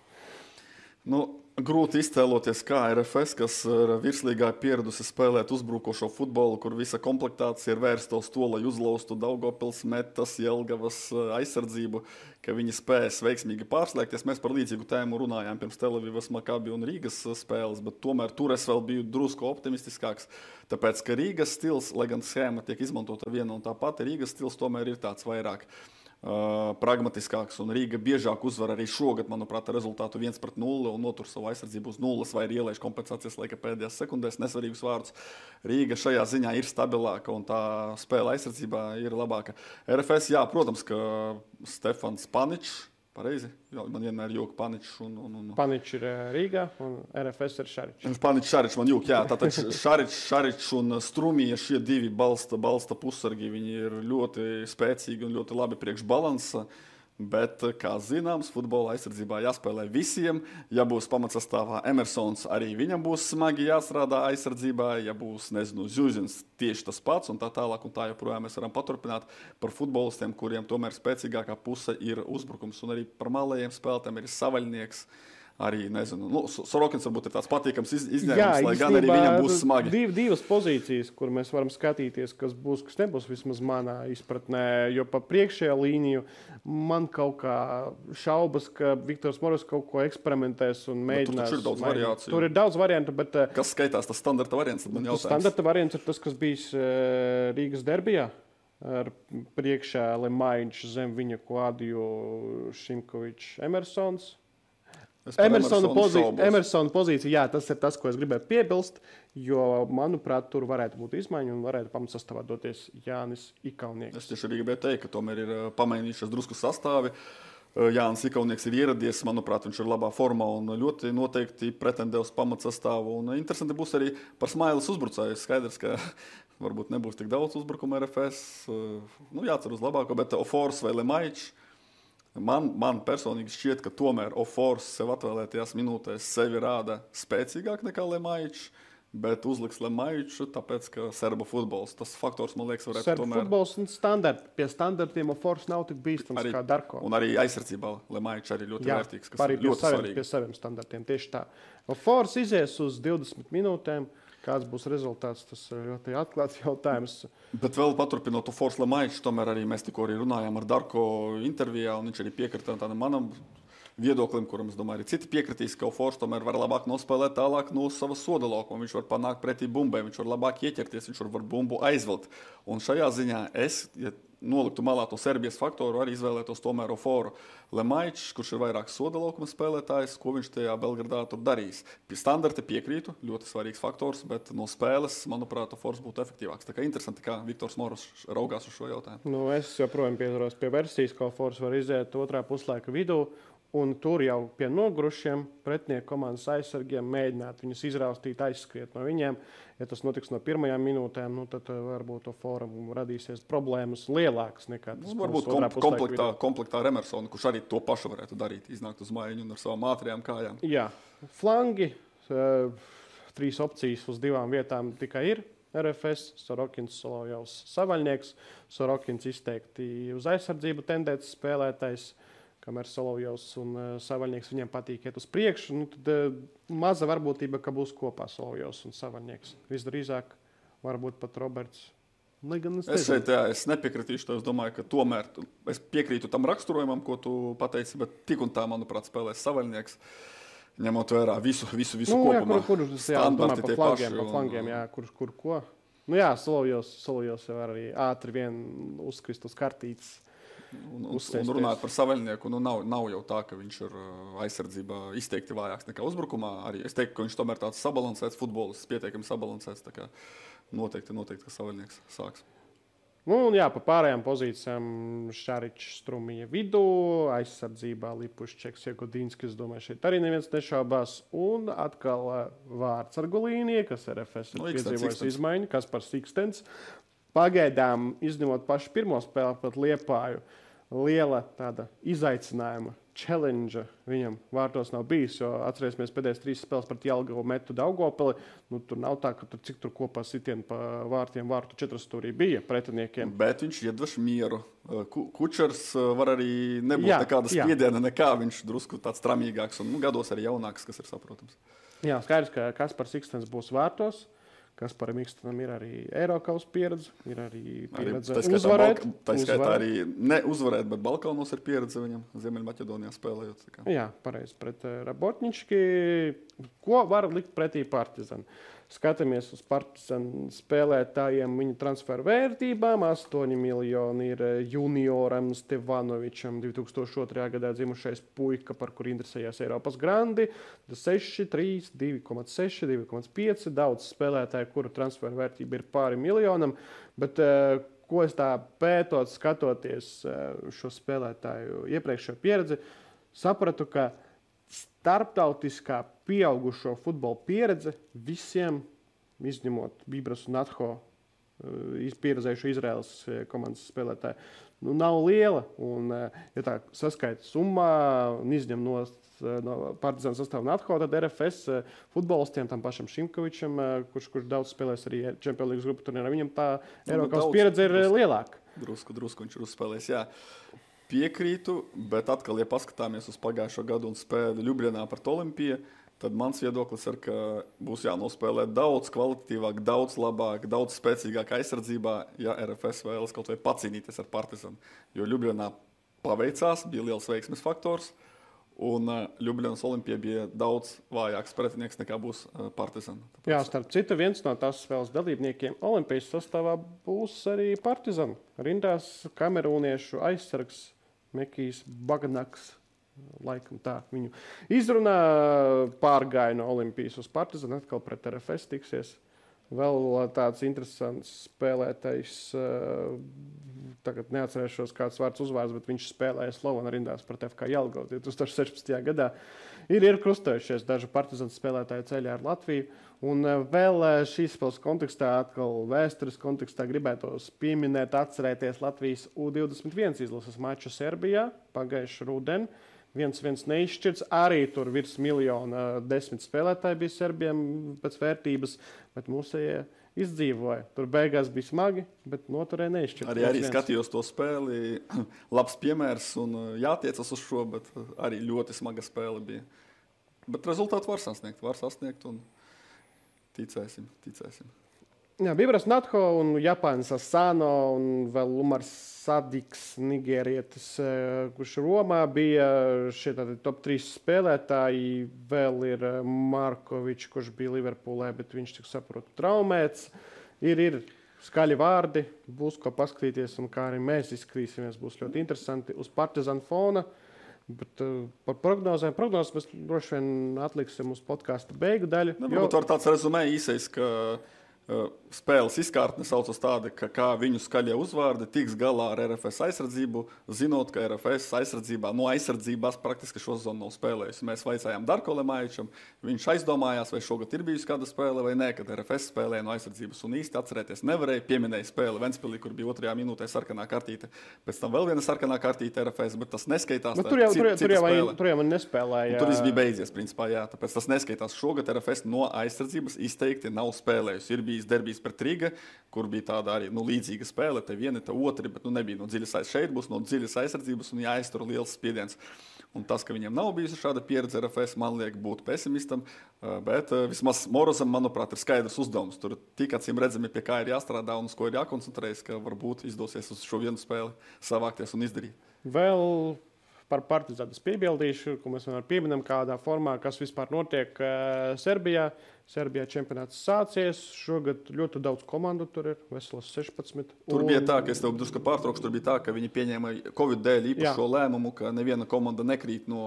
Grūti iztēloties, kā RFS, kas ir virslīgā pieradusi spēlēt uzbrukošo futbolu, kur visa komplektācija ir vērsta uz to, lai uzlaustu Daugavpils, Metas, Jelgavas aizsardzību, ka viņi spēs veiksmīgi pārslēgties. Mēs par līdzīgu tēmu runājām pirms Telavivas, Makabi un Rīgas spēles, bet tomēr tur es vēl biju drusku optimistiskāks, tāpēc, ka Rīgas stils, lai gan schēma tiek izmantota viena un tā pati, Rīgas stils tomēr ir tāds vairāk pragmatiskāks, un Rīga biežāk uzvar arī šogad, manuprāt, rezultātu 1-0 un notur savu aizsardzību uz 0 vai ir ielaiž kompensācijas laika pēdējās sekundēs, nesvarīgus vārdus. Rīga šajā ziņā ir stabilāka un tā spēle aizsardzībā ir labāka. RFS, jā, protams, ka Stefans Paničs, pareizi? Jā, man vienmēr jūka Paničs un... Paničs ir Rīgā un RFS ir Šaričs. Paničs, Šaričs man jūka, jā. Tātad Šaričs un Strumija, šie divi balsta pussargi, viņi ir ļoti spēcīgi un ļoti labi priekš balansa. Bet, kā zināms, futbola aizsardzībā jāspēlē visiem. Ja būs pamatsastāvā Emersons, arī viņam būs smagi jāstrādā aizsardzībā. Ja būs, Zuzins, tieši tas pats un tā tālāk un tā joprojām mēs varam paturpināt par futbolistiem, kuriem tomēr spēcīgākā puse ir uzbrukums. Un arī par malējiem spēlētājiem ir Savaļnieks. Arī, Sorokins varbūt ir tāds patīkams izņēmums, lai gan arī viņam būs smagi. Divas pozīcijas, kur mēs varam skatīties, kas būs, kas nebūs vismaz manā izpratnē, jo pa priekšējā līniju man kaut kā šaubas, ka Viktors Moros kaut ko eksperimentēs un mēģinās. Tur ir daudz variāciju. Tur ir daudz variantu, bet... Kas skaitās tas standarta variants, tad man jautājums. Standarta variants ir tas, kas bijis Rīgas derbijā. Ar priekšā Lemaiņš zem viņa Klādiju Šimkovičs Emersons. Emersona pozīcija, jā, tas ir tas, ko es gribēju piebilst, jo, manuprāt, tur varētu būt izmaiņa un varētu pamatsastāvā doties Jānis Ikaunieks. Es tieši arī gribēju teikt, ka tomēr ir pamainījušies drusku sastāvi. Jānis Ikaunieks ir ieradies, manuprāt, viņš ir labā formā un ļoti noteikti pretendē uz pamatsastāvu. Un interesanti būs arī par Smailes uzbrucēju. Skaidrs, ka varbūt nebūs tik daudz uzbrukuma RFS. Jācer uz labāko, bet Ofors vai Lemaičs. Man personīgi šķiet, ka tomēr Ofors sev atvēlētajās minūtēs sevi rāda spēcīgāk nekā Lemaičs, bet uzliks Lemaiču, tāpēc, ka serba futbols, tas faktors, man liekas, varētu serba tomēr... Serba futbols un standarti. Pie standartiem Ofors nav tik bīstams kā Darko. Un arī aizsardzībā Lemaičs arī ļoti vērtīgs, kas ir ļoti svarīgi. Pie saviem standartiem, tieši tā. Ofors izies uz 20 minūtēm. Kāds būs rezultāts, tas ir ļoti atklāts jautājums. Bet vēl paturpinot Ofors Lemaičs, tomēr arī mēs tikko arī runājām ar Darko intervijā, un viņš arī piekrita tādam manam viedoklim, kuram, es domāju, arī citi piekritīs, ka Ofors tomēr var labāk nospēlēt tālāk no sava soda laukuma. Viņš var panākt pretī bumbai, viņš var labāk ieķerties, viņš var bumbu aizvelt. Un šajā ziņā ja noliktu malā to Serbijas faktoru, arī izvēlētos tomēr Oforu. Lemaičs, kurš ir vairāk soda laukuma spēlētājs, ko viņš tajā Belgradā tur darīs. Pie standarta piekrītu, ļoti svarīgs faktors, bet no spēles, manuprāt, Ofors būtu efektīvāks. Tā kā interesanti, kā Viktors Moros raugās uz šo jautājumu. Es joprojām pieturos pie versijas, ka Ofors var iziet otrā puslaika vidū Un tur jau pie nogurušiem pretinieku komandas aizsargiem mēģināt viņus izraustīt, aizskriet no viņiem. Ja tas notiks no pirmajām minūtēm, tad varbūt to fórumu radīsies problēmas lielākas nekā tas. Varbūt komplektā ar Emersonu, kurš arī to pašu varētu darīt, iznākt uz maiņu un ar savām ātrajām kājām. Jā, flangi, 3 opcijas uz 2 vietām tikai ir. RFS, Sorokins, Solovjovs, Savaļnieks. Sorokins izteikti uz aizsardzību tendēts spēlētājs, kamēr Solovjovs un Savaļnieks viņiem patīk iet uz priekšu. Tad maza varbūtība, ka būs kopā Solovjovs un Savaļnieks. Visdrīzāk varbūt pat Roberts. Es nepiekritīšu to. Es domāju, ka tomēr es piekrītu tam raksturojumam, ko tu pateici, bet tik un tā, manuprāt, spēlēs Savaļnieks. Ņemot vērā visu kopumā. Standarti tie paši. Pa flangiem, jā, kur ko. Nu jā, Solovjovs jau arī ātri vien uzkrist uz kartītes. Un runāt par Savaļnieku, nav jau tā, ka viņš ir aizsardzībā izteikti vājāks nekā uzbrukumā. Arī es teiktu, ka viņš tomēr tāds sabalansēts futbolists, pietiekami sabalansēts. Tā kā noteikti, ka Savaļnieks sāks. Un jā, pa pārējām pozīcijām Šaričs Strumija vidū, aizsardzībā Lipuščeks, Jegodinskis, domāju, šeit arī neviens nešaubās. Un atkal vārds ar Golīnie, kas RFS ir piedzīvojis izmaiņu, kas par Sikstens. Pagaidām, izņemot pašu pirmo spēli pret Liepāju, liela tāda izaicinājuma, challenge viņam vārtos nav bijis, jo atcerēsimies pēdējās 3 spēles pret Jelgavu metu Daugavpili. Tur nav tā, ka cik tur kopā sitieni pa vārtiem vārtu 4 stūrī bija pretiniekiem. Bet viņš iedvež mieru. Kučers var arī nebūt nekāda spiediena, nekā viņš drusku tāds tramīgāks un gados arī jaunāks, kas ir saprotams. Jā, skaidrs, ka Kaspars Sikstens būs vārtos. Kasparam Ikstenam ir arī Eirokaus pieredze, ir arī pieredze uzvarēt. Tā skaitā arī ne uzvarēt, bet Balkānos ir pieredze viņam Ziemeļmaķedonijā spēlējot. Jā, pareizi, pret Rabotņički. Ko var likt pretī Partizan? Skatāmies uz Partizan spēlētājiem, viņu transferu vērtībām. 8 miljoni ir junioram Stevanovičam, 2002. gadā dzimušais puika, par kur interesējās Eiropas grandi. 6, 3, 2,6, 2,5. Daudz spēlētāju, kuru transferu vērtība ir pāri miljonam. Bet ko es tā pētot, skatoties šo spēlētāju iepriekšējo pieredzi, sapratu, ka starptautiskā pieaugušo futbola pieredze visiem, izņemot Bibras un Atho, pieredzējušo Izraēlas komandas spēlētāju, nav liela. Un, ja tā saskaita summā un izņem no Partizāna sastāvu un Atho, tad RFS futbolistiem, tam pašam Šimkovičam, kurš daudz spēlēs arī Champions League grupu turnīrā, viņam tā Eiropas pieredze ir lielāka. Drusku viņš ir uzspēlējis, jā. Piekrītu, bet atkal, ja paskatāmies uz pagājušo gadu un spēli Ljubljanā pret Olimpiju, tad mans viedoklis ir, ka būs jānospēlē daudz kvalitatīvāk, daudz labāk, daudz spēcīgāk aizsardzībā, ja RFS vēlas kaut vai pacīnīties ar Partizanu. Jo Ljubljanā paveicās, bija liels veiksmes faktors, un Ljubljanas Olimpija bija daudz vājāks pretinieks nekā būs Partizana. Jā, starp citu, viens no tās spēles dalībniekiem Olimpijas sastāvā būs arī Partizana. Rindās kamerūniešu aizsargs Mekijs Baganaks, laikam tā viņu izrunā, pārgāja no Olimpijas uz Partizanu, atkal pret RFS tiksies. Vēl tāds interesants spēlētājs, tagad neatcerēšos kāds vārds uzvārds, bet viņš spēlēja Slovana rindās pret FK Jelgavu 2016. gadā. Ir krustojušies dažu Partizanu spēlētāju ceļā ar Latviju. Un vēl šīs spēles kontekstā, atkal vēstures kontekstā gribētos pieminēt, atcerēties Latvijas U21 izlases maču Serbijā pagājuši rudeni. 1-1 neizšķirts, arī tur virs 1 10 spēlētāji bija Serbiem pēc vērtības, bet mūsējie izdzīvoja. Tur beigās bija smagi, bet noturēja neizšķirts. Arī skatījos to spēli, labs piemērs un jātiecas uz šo, bet arī ļoti smaga spēle bija. Bet rezultātu var sasniegt un ticēsim. Jā, Bibras Natho un Japānis Asano un vēl Umars Sadiks, nigērietis, kurš Romā bija šie top 3 spēlētāji. Vēl ir Markovičs, kurš bija Liverpoolē, bet viņš tik saprotu traumēts. Ir skaļi vārdi, būs ko paskatīties un kā arī mēs izskatīsimies, būs ļoti interesanti uz Partizanu fona. Bet par prognozēm mēs droši vien atliksim uz podkāsta beigu daļu. Varbūt var tāds rezumē īsais, ka spēles izkārtne saucas tāda, ka kā viņu skaļie uzvārdi tiks galā ar RFS aizsardzību, zinot, ka RFS aizsardzībā, no aizsardzībās praktiski šo sezonu nav spēlējusi. Mēs vaicājām Darko Lemaičam, viņš aizdomājās, vai šogad ir bijusi kāda spēle vai nē, kad RFS spēlēja no aizsardzības un īsti atcerēties nevarēja. Pieminēja spēli Ventspilī, kur bija 2. minūtē sarkanā kartīte, pēc tam vēl viena sarkanā kartīte RFS, bet tas neskaitās. Tur jau man nespēlēja. Tur viss bija beidzies, principā, jā, tāpēc tas neskaitās. Šogad RFS no aizsardzības izteikti nav spēlējusi. Ir bijis derbijs pret Riga, kur bija tāda arī līdzīga spēle, te viena, te otra, bet nebija no dziļas aizsardzības. Šeit būs no dziļas aizsardzības un jāiztur liels spiediens. Un tas, ka viņiem nav bijusi šāda pieredze RFS, man liek būt pesimistam, bet vismaz Morozam, manuprāt, ir skaidrs uzdevums. Tur tik acīm redzami, pie kā ir jāstrādā un uz ko ir jākoncentrējas, ka varbūt izdosies uz šo vienu spēli savākties un izdarīt. Vēl par Partizānu piebildīšu, ko mēs vienmēr pieminam kādā formā, kas vispār notiek Serbijā. Serbijā čempionāts sācies. Šogad ļoti daudz komandu tur ir, veselas 16. Tur bija tā, ka es tev drusku pārtraukšu, tur bija tā, ka viņi pieņēma Covid dēļ īpašo lēmumu, ka neviena komanda nekrīt no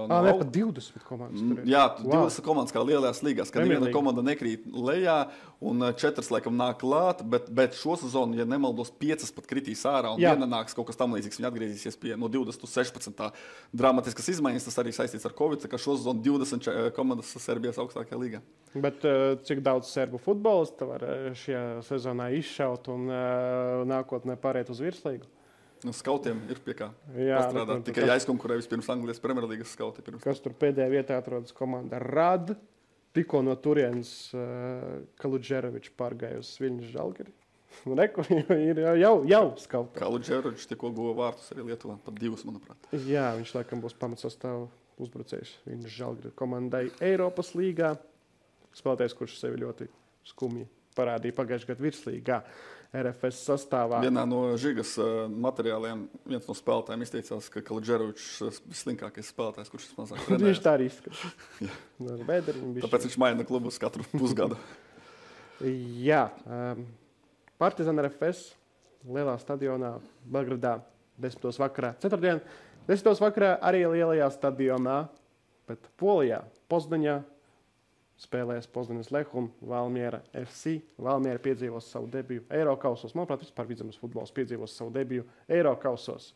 ne, pat 20 komandas tur ir. Jā, 20 komandas kā lielajās līgās, ka neviena komanda nekrīt lejā un 4 laikam nāk klāt, bet šo sezonu, ja nemaldos, 5 pat kritīs ārā un viena nāks kaut kas tam līdzīgs, viņi atgriezīsies pie no 20 uz 16. Dramatiskas izmaiņas, tas arī saistīts ar Covid, ka šo sezonu 20 komandas Serbijas augstākajā līgā. Bet cik daudz serbu futbolistu var šajā sezonā izšaut un nākotnē pāriet uz virslīgu? Skautiem ir pie kā pastrādāt. Tikai jāizkonkurē vispirms Anglijas Premjerlīgas skauti. Kas tur pēdējā vietā atrodas komanda Rad. Tikko no turienes Kaludžerovičs pārgāja uz Viļņas Žalgiri. Ir jau skauti. Kaludžerovičs tikko guva vārtus arī Lietuvā. Pat 2, manuprāt. Jā, viņš laikam būs pamatsastāvu uzbrucējs Viļņas Žalgiri komandai Eiropas līgā. Spēlētājs, kurš sevi ļoti skumji parādīja pagājušajā gadā virslīgā RFS sastāvā. Vienā no Žigas materiāliem viens no spēlētājiem izteicās, ka Kaludžerovičs slinkākais spēlētājs, kurš mazāk trenējas. Viņš tā arī izskatās. Tāpēc viņš maina klubus katru pusgadu. Jā. Partizāna RFS lielā stadionā Belgradā 10. vakarā. Ceturtdien 10. vakarā arī lielajā stadionā, bet Polijā, Pozdaņā, spēlēs Pozdaņas Lehu un Valmiera FC. Valmiera piedzīvos savu debiju Eirokausos. Manuprāt, vispār Vidzemes futbols piedzīvos savu debiju Eirokausos.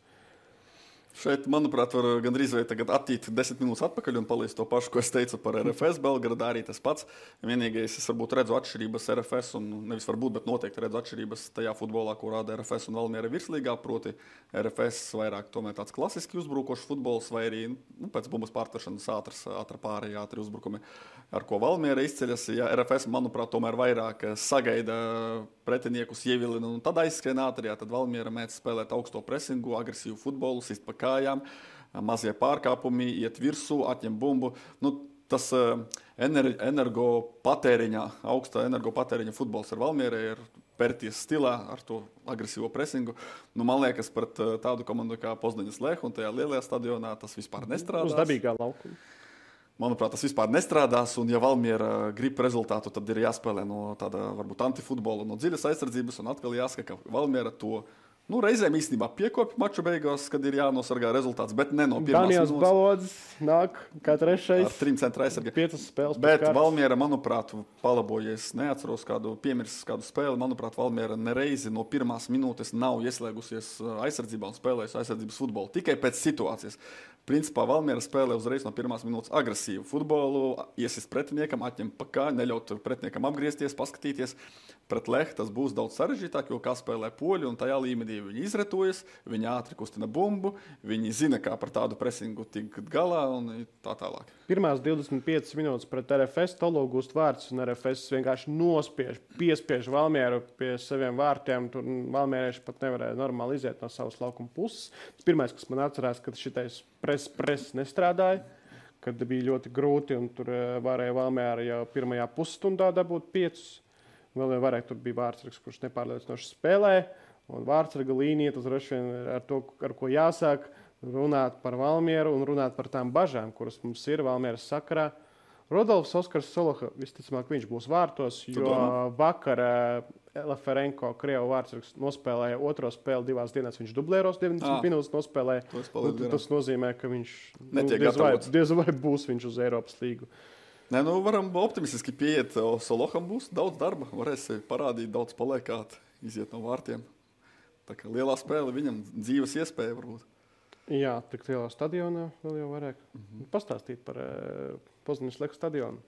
Šeit, manuprāt, var gandrīz vai tagad attīt 10 minūtes atpakaļ un paliest to pašu, ko es teicu par RFS Belgradā, arī tas pats. Vienīgais, es varbūt redzu atšķirības RFS, un nevis varbūt, bet noteikti redzu atšķirības tajā futbolā, ko rāda RFS un Valmiera virslīgā, proti RFS vairāk tomēr tāds klasiski uzbrukošs futbols, vai arī pēc bumbas pārtašanas ātra pārējā, ātri uzbrukumi, ar ko Valmiera izceļas. Ja RFS, manuprāt, tomēr vairāk sagaida pretiniekus ievilina, un tad aizskrien ātri, tad Valmiera mēdz spēlēt augsto presingu, agresīvu futbolu, sist pa kājām, mazie pārkāpumi, iet virsū, atņem bumbu. Tas augsta energopatēriņa futbols ar Valmierai ir pērties stilā ar to agresīvo presingu. Man liekas, pret tādu komandu kā Pozdaņas Lehu un tajā lielajā stadionā tas vispār nestrādās. Uz dabīgā laukuma. Manuprāt, tas vispār nestrādās, un ja Valmiera grib rezultātu, tad ir jāspēlē no tāda varbūt antifutbola, no dziļas aizsardzības, un atkal jāsaka, ka Valmiera to reizēm īstenībā piekopja maču beigās, kad ir jānosargā rezultāts, bet ne no pirmās minūtes. Daniels Balodzis nāk kā trešais. Ar 3 centra aizsargiem. 5 spēles. Bet Valmiera, manuprāt, palabojies, neatceros piemirsis kādu spēli. Manuprāt, Valmiera nereizi no pirmās minūtes nav ieslēgusies aizsardzībā un spēlējusi aizsardzības futbolu. Tikai pēc situācijas. Principā Valmiera spēlē uzreiz no pirmās minūtes agresīvu futbolu, iesist pretiniekam, atņem pa kā, neļaut pretiniekam apgriezties, paskatīties. Pret Lehu tas būs daudz sarežģītāk, jo kā spēlē poļi, un tajā līmenī viņi izretojas, viņi ātri kustina bumbu, viņi zina, kā par tādu presingu tikt galā un tā tālāk. Pirmās 25 minūtes pret RFS Tolo gūst vārds, un RFS vienkārši piespiež Valmieru pie saviem vārtiem. Tur Valmierieši pat nevarēja normāli iziet no savas laukuma puses. Pirmais, kas man atcerās, kad šitais pres nestrādāja, kad bija ļoti grūti, un tur varēja Valmiera jau pirmajā pusstundā dabūt 5. Vēl vairāk tur bija vārdsargs, kurš nepārliecinoši spēlē. Un vārdsarga līnija, tas droši vien ar to, ar ko jāsāk runāt par Valmieru un runāt par tām bažām, kuras mums ir Valmieras sakarā. Rodolfs Oskars Soloha, visticamāk, viņš būs vārtos, jo vakar Laferenko, Krievu vārdsargs, nospēlēja otro spēli 2 dienās. Viņš dublēros 90 minūtes nospēlēja. Tas nozīmē, ka viņš diez vai būs viņš uz Eiropas līgu. Nē, nu varam optimistiski pieiet. Soloham būs daudz darba, varēs parādīt daudz paliekāt, iziet no vārtiem. Tā kā lielā spēle viņam dzīves iespēja varbūt. Jā, tik lielā stadionā vēl jau varēja pastāstīt par Poznaņas Lech stadionu.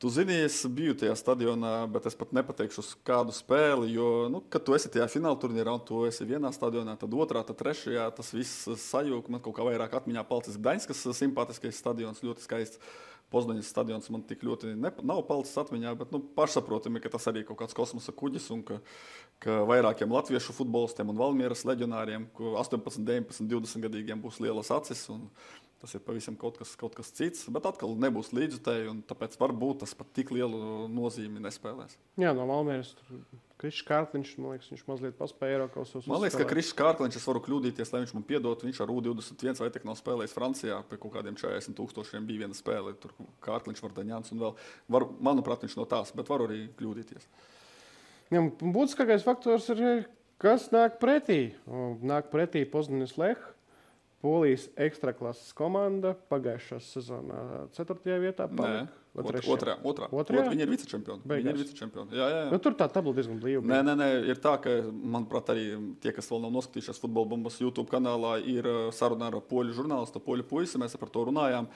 Tu zini, es biju tajā stadionā, bet es pat nepateikšu uz kādu spēli, jo, kad tu esi tajā fināla turnīrā un tu esi vienā stadionā, tad otrā, tad trešajā, tas viss sajūg. Man kaut kā vairāk atmiņā palicis Gdaņskas simpātiskais stadions, ļoti skaists. Poznaņas stadions man tik ļoti nav palicis atmiņā, bet pašsaprotami, ka tas arī kaut kāds kosmosa kuģis un ka vairākiem latviešu futbolistiem un Valmieras leģionāriem, 18, 19, 20 gadīgiem būs lielas acis un tas ir pavisam kaut kas cits, bet atkal nebūs līdzutēji un tāpēc varbūt tas pat tik lielu nozīmi nespēlēs. Jā, no Valmieras Krišs Kārkliņš, man liekas, viņš mazliet paspēja Eirokausos. Man liekas, ka Krišs Kārkliņš, es varu kļūdīties, lai viņš man piedot, viņš ar U21 vai tik nav spēlējis Francijā, pie kaut kādiem 40,000 bija viena spēle, tur Kārkliņš, Vardaņāns un vēl, manuprāt, viņš no tās, bet varu arī kļūdīties. Jā, būtiskākais faktors ir, kas nāk pretī. Nāk pretī Poznaņas Lech. Polijas ekstraklases komanda pagājušās sezonā 4. vietā palika. Otrā. Viņi ir vicečempioni. Jā. Tur tā tabula diezgan blīva. Nē, ir tā, ka, manuprāt, arī tie, kas vēl nav noskatījušies Futbola Bumbas YouTube kanālā, ir saruna ar poļu žurnālistu, poļu puisi, mēs par to runājām.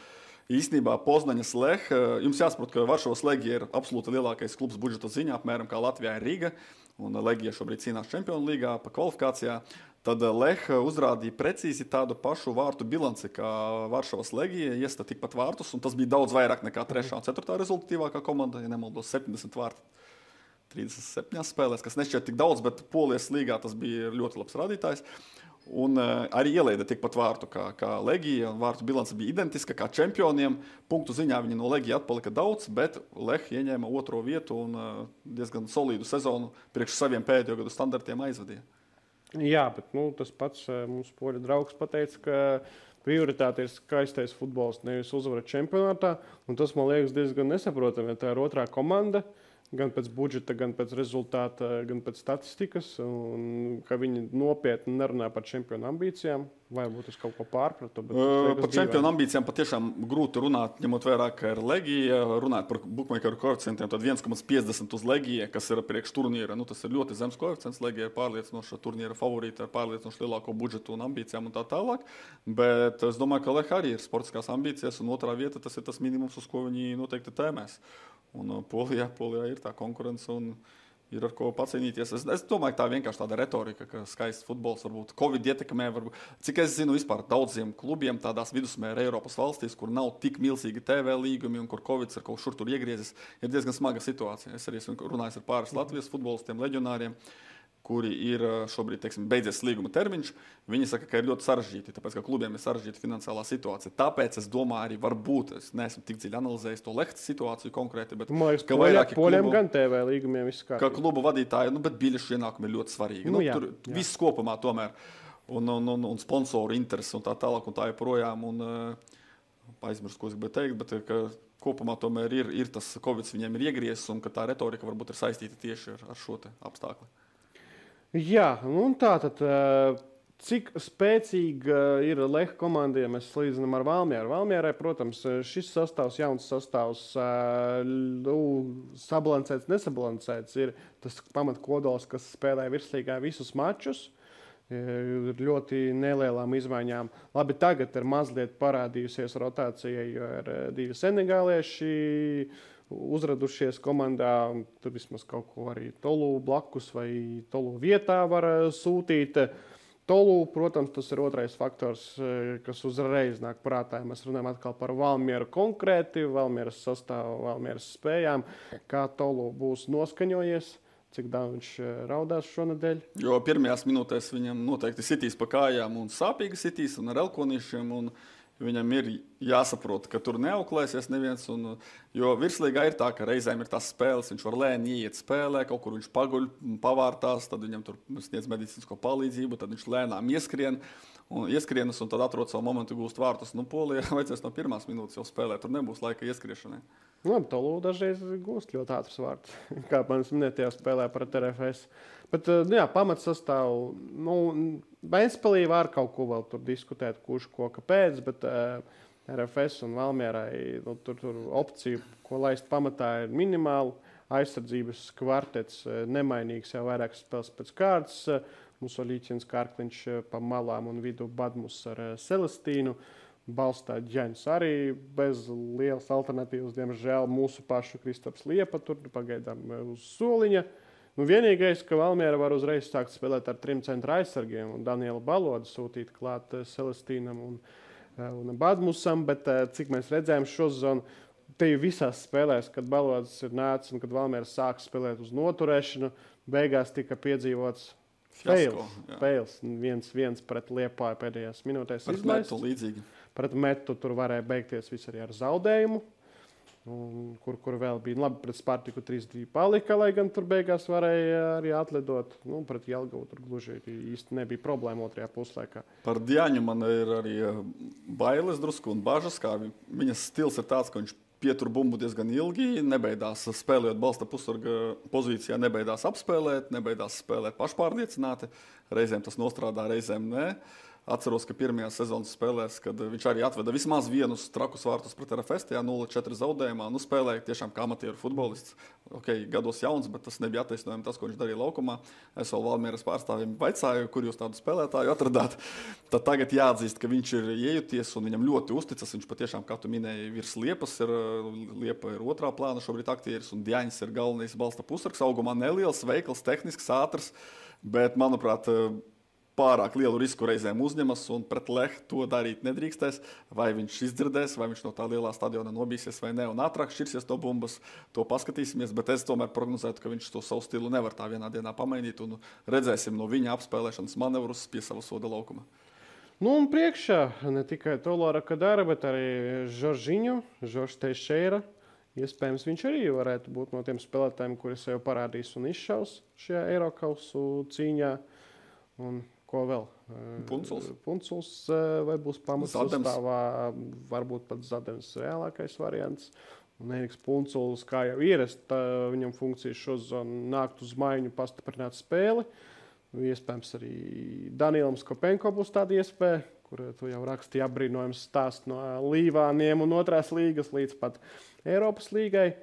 Īstenībā Poznaņas Lech, jums jāsaprot, ka Varšavas Legija ir absolūti lielākais klubs budžeta ziņā, apmēram kā Latvijā ir Riga, un Legija šobrīd cīnās Čempionu līgā pa kvalifikācijā. Tad Lech uzrādīja precīzi tādu pašu vārtu bilanci kā Varšavas Legija, iesta tikpat vārtus, un tas bija daudz vairāk nekā 3. un 4. rezultatīvākā komanda, ja nemaldos 70 vārti 37 spēlēs, kas nešķiet tik daudz, bet Polijas līgā tas bija ļoti labs rādītājs. Un arī ielaida tikpat vārtu kā Legija, un vārtu bilance bija identiska kā čempioniem. Punktu ziņā viņi no Legija atpalika daudz, bet Lech ieņēma 2. vietu un diezgan solīdu sezonu priekš saviem pēdējo gadu standartiem aizvadīja. Jā, bet tas pats mums poļu draugs pateica, ka prioritāte ir skaistais futbols, nevis uzvara čempionātā. Un tas man liekas diezgan nesaprotami, ja tā ir otrā komanda, gan pēc budžeta, gan pēc rezultāta, gan pēc statistikas, un ka viņi nopietni nerunā par čempionu ambīcijām. Varbūt es kaut ko pārpratu. Par čempionu ambīcijām patiešām grūti runāt, ņemot vērā, ka ir Legija. Runāt par bookmakeru koeficientiem, tad 1,50 uz Legija, kas ir priekš turnīra. Tas ir ļoti zems koeficients. Legija ir pārliecinoša turnīra favorīta ar pārliecinoši lielāko budžetu un ambīcijām un tā tālāk. Bet es domāju, ka Lech arī ir sportiskās ambīcijas, un otrā vieta tas ir tas minimums, uz ko viņi noteikti tēmēs. Un Polijā ir tā konkurence un ir ar ko pacīnīties. Es domāju, ka tā vienkārši tāda retorika, ka skaists futbols varbūt Covid ietekmē. Cik es zinu, vispār daudziem klubiem tādās vidusmēra Eiropas valstīs, kur nav tik milzīgi TV līgumi un kur Covid ir kaut šur tur iegriezis, ir diezgan smaga situācija. Es arī esmu runājis ar pāris Latvijas futbolistiem, leģionāriem, kuri ir šobrīd, beidzies līguma termiņš. Viņi saka, ka ir ļoti sarežģīti, tāpēc, ka klubiem ir sarežģīta finansiālā situācija. Tāpēc es domāju, arī varbūt, es neesmu tik dziļi analizējis to Lechtas situāciju konkrēti, bet ka vairāki poļiem gan TV līgumiem viss kārtībā. Ka klubu vadītāji, bet biļešu ienākumi ir ļoti svarīgi. Tur viss kopumā tomēr. Un sponsoru interesi un tā tālāk un tā joprojām. Aizmirst, ko es gribēju teikt, bet ka kopumā tomēr ir tas Covid viņiem ir iegriezis un ka tā retorika varbūt ir saistīta tieši ar šo te apstākli. Jā, un tātad, cik spēcīga ir Lech komanda, ja mēs salīdzinām ar Valmieru. Valmierai, protams, šis sastāvs, jauns sastāvs, sabalansēts, nesabalansēts, ir tas pamatkodols, kas spēlē virslīgā visus mačus. Ir ļoti nelielām izmaiņām. Labi, tagad ir mazliet parādījusies rotācija, jo ir 2 senegālieši uzradušies komandā, tur vismaz kaut ko arī Tolu blakus vai Tolu vietā var sūtīt. Tolu, protams, tas ir otrais faktors, kas uzreiz nāk prātā. Mēs runājam atkal par Valmieru konkrēti, Valmieras sastāvu, Valmieras spējām, kā Tolu būs noskaņojies, cik daudz viņš raudās šonadēļ. Jo pirmajās minūtēs viņam noteikti sitīs pa kājām un sāpīgi sitīs un ar elkonīšiem un viņam ir jāsaprot, ka tur neauklēsies neviens. Jo virslīgā ir tā, ka reizēm ir tās spēles, viņš var lēni ieiet spēlē, kaut kur viņš paguļ, pavārtās, tad viņam tur sniedz medicīnisko palīdzību, tad viņš lēnām ieskrienas un tad atrod savu momentu gūst vārtus. Polijā vajadzēs no 1. minūtes jau spēlēt, tur nebūs laika ieskriešanai. Tolu dažreiz gūst ļoti ātrs vārds, kā manis minētajā spēlē pret RFS. Bet, pamatsastāvu, Ventspilī var kaut ko vēl tur diskutēt, kurš ko kāpēc, bet RFS un Valmierai tur opcija, ko laist pamatā, ir minimāla. Aizsardzības kvartets nemainīgs jau vairākas spēles pēc kārtas. Mums Līķins Kārkliņš pa malām un vidu Badmus ar Celestīnu. Balstā Ģeņs arī bez lielas alternatīvas. Diemžēl mūsu pašu Kristaps Liepa tur pagaidām uz soliņa. Vienīgais, ka Valmiera var uzreiz sākt spēlēt ar 3 centra aizsargiem un Danielu Balodu sūtīt klāt Celestīnam un Badmusam, bet cik mēs redzējām šo sezonu, te jau visās spēlēs, kad Balods ir nācis un kad Valmiera sāk spēlēt uz noturēšanu, beigās tika piedzīvots fails. 1-1 pret Liepāju pēdējās minūtēs izlaists. Pret Metu tur varēja beigties viss arī ar zaudējumu. Kur vēl bija labi pret Spartiku 3-2 palika, lai gan tur beigās varēja arī atlidot. Pret Jelgavu tur gluži īsti nebija problēma otrajā puslaikā. Par Diaņu man ir arī bailes drusku un bažas, kā viņas stils ir tāds, ka viņš pietur bumbu diezgan ilgi, nebeidās spēlējot balsta pusarga pozīcijā, nebeidās apspēlēt, nebeidās spēlēt pašpārliecināti. Reizēm tas nostrādā, reizēm nē. Atceros, ka pirmajā sezonas spēlēs, kad viņš arī atveda vismaz vienus trakus vārtus pret RFS, 0-4 zaudējumā, spēlēja tiešām kā amatieru futbolists. Gados jauns, bet tas nebija attaisnojami tas, ko viņš darīja laukumā. Es vēl Valmieras pārstāvjiem vaicāju, kur jūs tādu spēlētāju atradāt. Tad tagad jāatzīst, ka viņš ir iejuties un viņam ļoti uzticas. Viņš patiešām, kā tu minēji, virs Liepas Liepa ir otrā plāna šobrīd aktieris un Diaņs ir galvenais balsta pusargs. Augumā neliels, veikls, tehnisks, ātrs, bet, manuprāt, pārāk lielu risku reizēm uzņemas un pret Lehu to darīt nedrīkstēs. Vai viņš izdzirdēs, vai viņš no tā lielā stadiona nobīsies vai ne un ātrāk šķirsies no bumbas, to paskatīsimies. Bet es tomēr prognozētu, ka viņš to savu stilu nevar tā vienā dienā pamainīt un redzēsim no viņa apspēlēšanas manevrus pie sava soda laukuma. Un priekšā ne tikai Tolora Kadara, bet arī Žoržs Teixeira. Iespējams, viņš arī varētu būt no tiem spēlētājiem, kuri sev parādīs un izšaus šajā Eirokausu cīņā. Un ko vēl? Punculs vai būs pamats sastāvā, varbūt pat Zadems reālākais variants. Un Eriks Punculs, kā jau ierast, viņam funkcija šo sezonu nākt uz maiņu, pastiprināt spēli. Iespējams, arī Danielam Skopenko būs tāda iespēja, kur tu jau rakstīji apbrīnojums stāst no Līvāniem un otrās līgas līdz pat Eiropas līgai.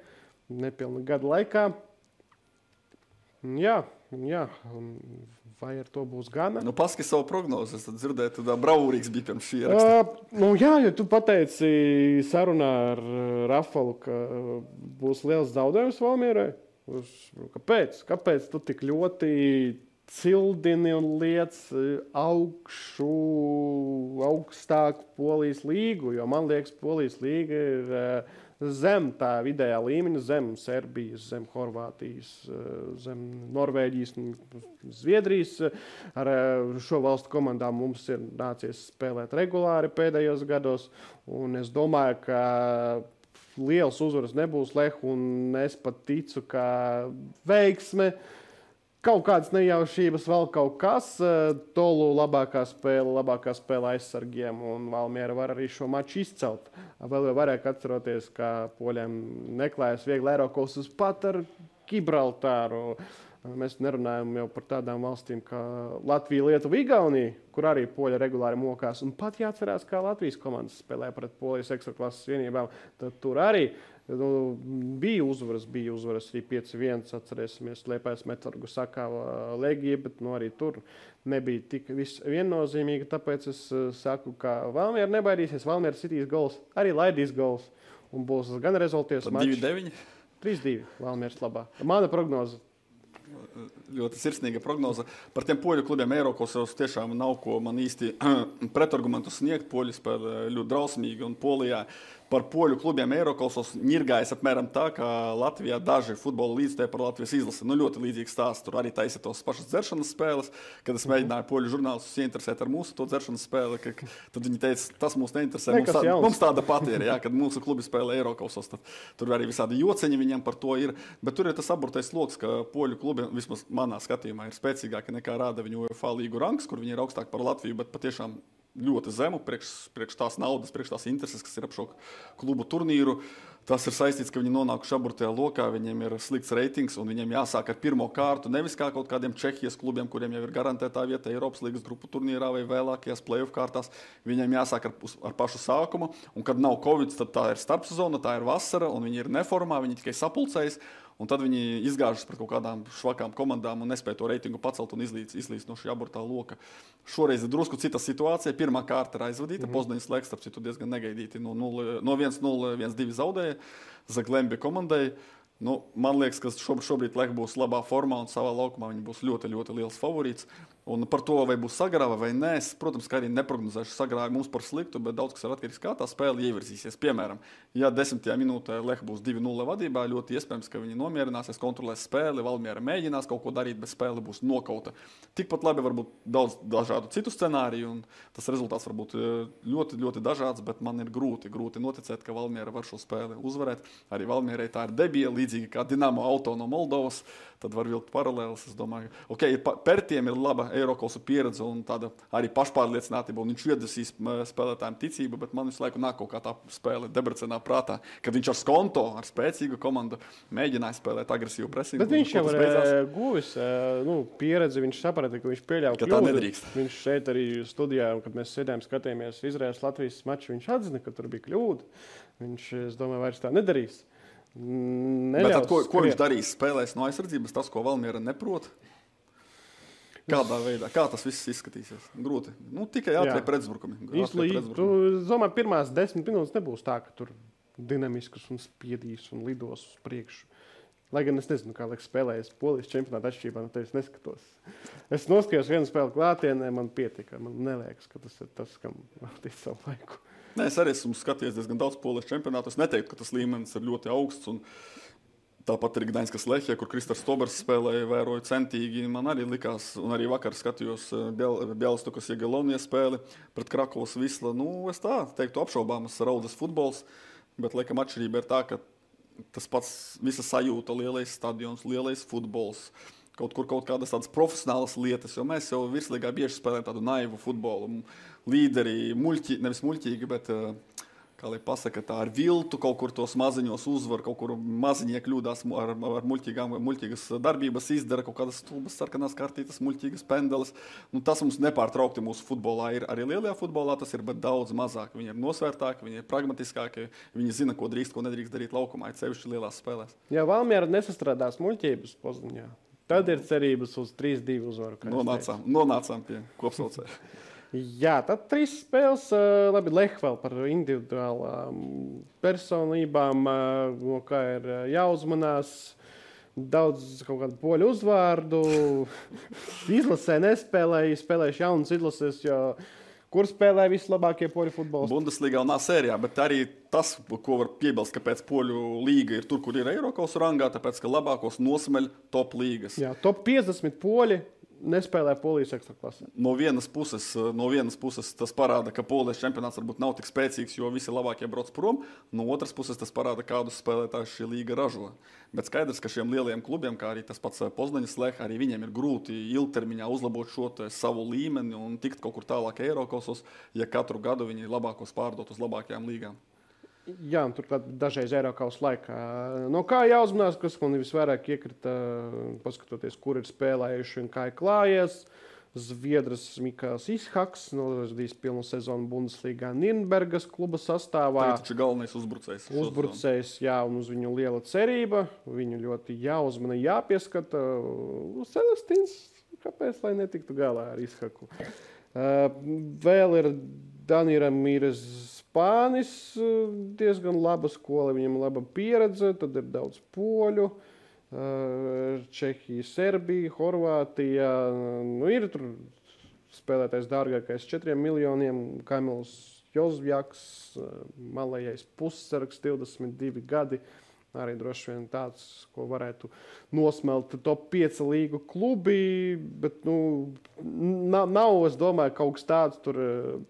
Nepilna gada laikā. Jā. Vai ar to būs gana? Paski savu prognozi. Es dzirdēju, tu bravūrīgs bija pirms šī ieraksta. Jā, jo tu pateici sarunā ar Rafalu, ka būs liels zaudējums Valmierai. Kāpēc tu tik ļoti cildini un liec augstāku Polijas līgu? Jo man liekas, Polijas līga ir zem tā vidējā līmeņa, zem Serbijas, zem Horvātijas, zem Norvēģijas un Zviedrijas. Ar šo valstu komandām mums ir nācies spēlēt regulāri pēdējos gados, un es domāju, ka liels uzvaras nebūs Lehu, un es pat ticu, ka veiksme, kaut kādas nejaušības, vēl kaut kas. Tolu labākā spēle aizsargiem, un Valmiera var arī šo maču izcelt. Vēl jau varēja atceroties, ka poļiem neklājas viegli Eirokausus pat ar Gibraltāru. Mēs nerunājam jau par tādām valstīm kā Latvija, Lietuva, Igaunija, kur arī poļi regulāri mokās. Un pat jāatcerās, kā Latvijas komandas spēlē pret Polijas ekstraklases vienībām. Tad tur arī bija uzvaras arī 5-1, atcerēsimies, Liepājas Metalurgu sakāva Legija, bet arī tur nebija tik viennozīmīgi, tāpēc es saku, ka Valmiera nebaidīsies, Valmiera sitīs gols, arī laidīs gols, un būs gan rezultāts mačs. 2-9? 3-2 Valmieras labā. Mana prognoze. Ļoti sirsnīga prognoze. Par tiem poļu klubiem Eirokausos tiešām nav ko man īsti pretargumentu sniegt. Poļi spēlē ļoti drausmīgi un Polijā par poļu klubiem Eirokausos ņirgājas apmēram tā, kā Latvijā daži futbola līdzstēji par Latvijas izlasi. Ļoti līdzīgs stāsts. Tur arī taisa tos pašas dzeršanas spēles. Kad es mēģināju poļu žurnālistus ieinteresēt ar mūsu to dzeršanas spēli, tad viņi teica, tas mūs neinteresē. Mums tāda pati ir, kad mūsu klubi spēlē Eirokausos. Tur arī visādi jociņi viņam par to ir. Bet tur ir tas aburtais loks, ka poļu klubi, vismaz manā skatījumā, ir spēcīgāki nekā rāda viņu UEFA līgu rangs, kur viņi ir augstāk par Latviju, bet patiešām ļoti zemu priekš tās naudas, priekš tās intereses, kas ir ap šo klubu turnīru. Tas ir saistīts, ka viņi nonākuši aburtajā lokā, viņiem ir slikts reitings un viņiem jāsāk ar pirmo kārtu, nevis kā kaut kādiem Čehijas klubiem, kuriem jau ir garantētā vieta Eiropas līgas grupu turnīrā vai vēlākajās play-off kārtās. Viņiem jāsāk ar pašu sākumu, un kad nav Covid, tad tā ir starpsezona, tā ir vasara, un viņi ir neformā, viņi tikai sapulcējas. Un tad viņi izgāžas pret kaut kādām švakām komandām un nespēja to reitingu pacelt un izlīst no šī aburtā loka. Šoreiz ir drusku cita situācija. Pirmā kārta ir aizvadīta. Poznaņas Leks, starp citu, diezgan negaidīti no 1-0, 1-2 zaudēja Zaglembi komandai. Man liekas, ka šobrīd Lech būs labā formā un savā laukumā viņi būs ļoti, ļoti liels favorīts. Un par to, vai būs sagrāva vai nē, es, protams, kā arī neprognozēšu sagrāvi mums par sliktu, bet daudz kas ir atkarīgs, kā tā spēle ievirzīsies. Piemēram, ja 10. minūtē Lech būs 2-0 vadībā, ļoti iespējams, ka viņi nomierināsies, kontrolēs spēli, Valmiera mēģinās kaut ko darīt, bet spēle būs nokauta. Tikpat labi var būt daudz dažādu citu scenāriju, un tas rezultāts var būt ļoti, ļoti dažāds, bet man ir grūti noticēt, ka Valmiera var šo spēli uzvarēt. Arī Valmierai tā ir debija, līdzīgi kā Dinamo Auto no Moldovas. Tad var vilkt paralēlis. Es domāju, Pertiem ir laba Eirokosu pieredze un tāda arī pašpārliecinātība, un viņš iedvesīs spēlētājiem ticību, bet man visu laiku nāk kaut kā tā spēle Debrecenā prātā, kad viņš ar Skonto, ar spēcīgu komandu mēģināja spēlēt agresīvu presingu. Bet viņš jau ir guvis pieredzi, viņš saprata, ka viņš pieļauj kļūdu. Tā nedrīkst. Viņš šeit arī studijā, kad mēs sēdējām, skatījāmies Izraēlas-Latvijas maču, viņš atzina, ka tur bija kļūda. Viņš, es domāju, vairs tā nedarīs. Bet tad, ko viņš darīs? Spēlēs no aizsardzības, tas, ko Valmiera neprot? Kādā veidā? Kā tas viss izskatīsies? Grūti. Tikai ātrie pretuzbrukumi. Tu domāju, pirmās 10 minūtes nebūs tā, ka tur dinamisks un spiedīs un lidos uz priekšu. Lai gan es nezinu, kā liekas spēlējas Polijas čempionāta atšķirībā, no tevis neskatos. Es noskatījos vienu spēli klātienē, man pietika. Man neliekas, ka tas ir tas, kam veltīt savu laiku. Nē, es arī esmu skatījies diezgan daudz Polijas čempionātu. Es neteiktu, ka tas līmenis ir ļoti augsts. Un tāpat arī Gdaņskas Lehija, kur Kristers Tobers spēlēja, vēroja centīgi. Man arī likās, un arī vakar skatījos Bialystokas Jagiellonijas spēli pret Krakovas Visla. Es tā teiktu apšaubāmas raudas futbols, bet laikam atšķirība ir tā, ka tas pats visa sajūta, lielais stadions, lielais futbols, kaut kādas tādas profesionālas lietas, jo mēs jau virslīgā bieži spēlējam tādu naivu futbolu. Līderi, nevis muļķīgi, bet, kā lai pasaka, tā ar viltu kaut kur tos maziņos uzvar, kaut kur maziņie kļūdās ar muļķīgas darbības izdara, kaut kādas stulbas sarkanās kartītas, muļķīgas pendeles. Tas mums nepārtraukti mūsu futbolā ir. Arī lielajā futbolā tas ir, bet daudz mazāk. Viņi ir nosvērtāki, viņi ir pragmatiskāki, viņi zina, ko drīkst, ko nedrīkst darīt laukumā, it sevišķi lielās spēlēs. Ja Valmiera nesastrādās muļķības Poznaņā, tad ir cerības uz 3-2 uzvaru. Nonācām pie kopsaucēja. Jā, tad 3 spēles. Labi, Lech vēl par individuālām personībām, no kā ir jāuzmanās. Daudz kaut kādu poļu uzvārdu. Izlasē spēlējuši jaunas izlases, jo kur spēlē vislabākie poļu futbolisti? Bundesligā un sērijā, bet arī tas, ko var piebilst, kāpēc poļu līga ir tur, kur ir Eirokosu rangā, tāpēc, ka labākos nosmeļ top līgas. Jā, top 50 poļi nespēlē Polijas ekstraklasē. No vienas puses tas parāda, ka Polijas čempionāts varbūt nav tik spēcīgs, jo visi labākie brauc prom. No otras puses tas parāda, kādus spēlētājus šī līga ražo. Bet skaidrs, ka šiem lielajiem klubiem, kā arī tas pats Poznaņas Lech, arī viņiem ir grūti ilgtermiņā uzlabot šo savu līmeni un tikt kaut kur tālāk Eirokosos, ja katru gadu viņi labākos pārdot uz labākajām līgām. Jā, un turklāt dažreiz Eirokaus laikā. No kā jāuzmanās, kas man visvairāk iekrita, paskatoties, kur ir spēlējuši un kā ir klājies. Zviedras Mikāls Ishaks nodarbojis pilnu sezonu Bundesligā Nürnbergas kluba sastāvā. Tā taču galvenais uzbrucējs. Uzbrucējs, jā, un uz viņu liela cerība. Viņu ļoti jāuzmana, jāpieskata. Celestīns, kāpēc, lai netiktu galā ar Ishaku? Vēl ir Danira Mīres Spānis, diezgan laba skola, viņam laba pieredze, tad ir daudz poļu, Čehija, Serbija, Horvātija. Ir tur spēlētais dārgākais 4 miljoniem, Kamils Jozvjaks, malējais pussargs, 22 gadi. Arī droši vien tāds, ko varētu nosmelt top 5 līgu klubi, bet nav, es domāju, kaut kas tāds tur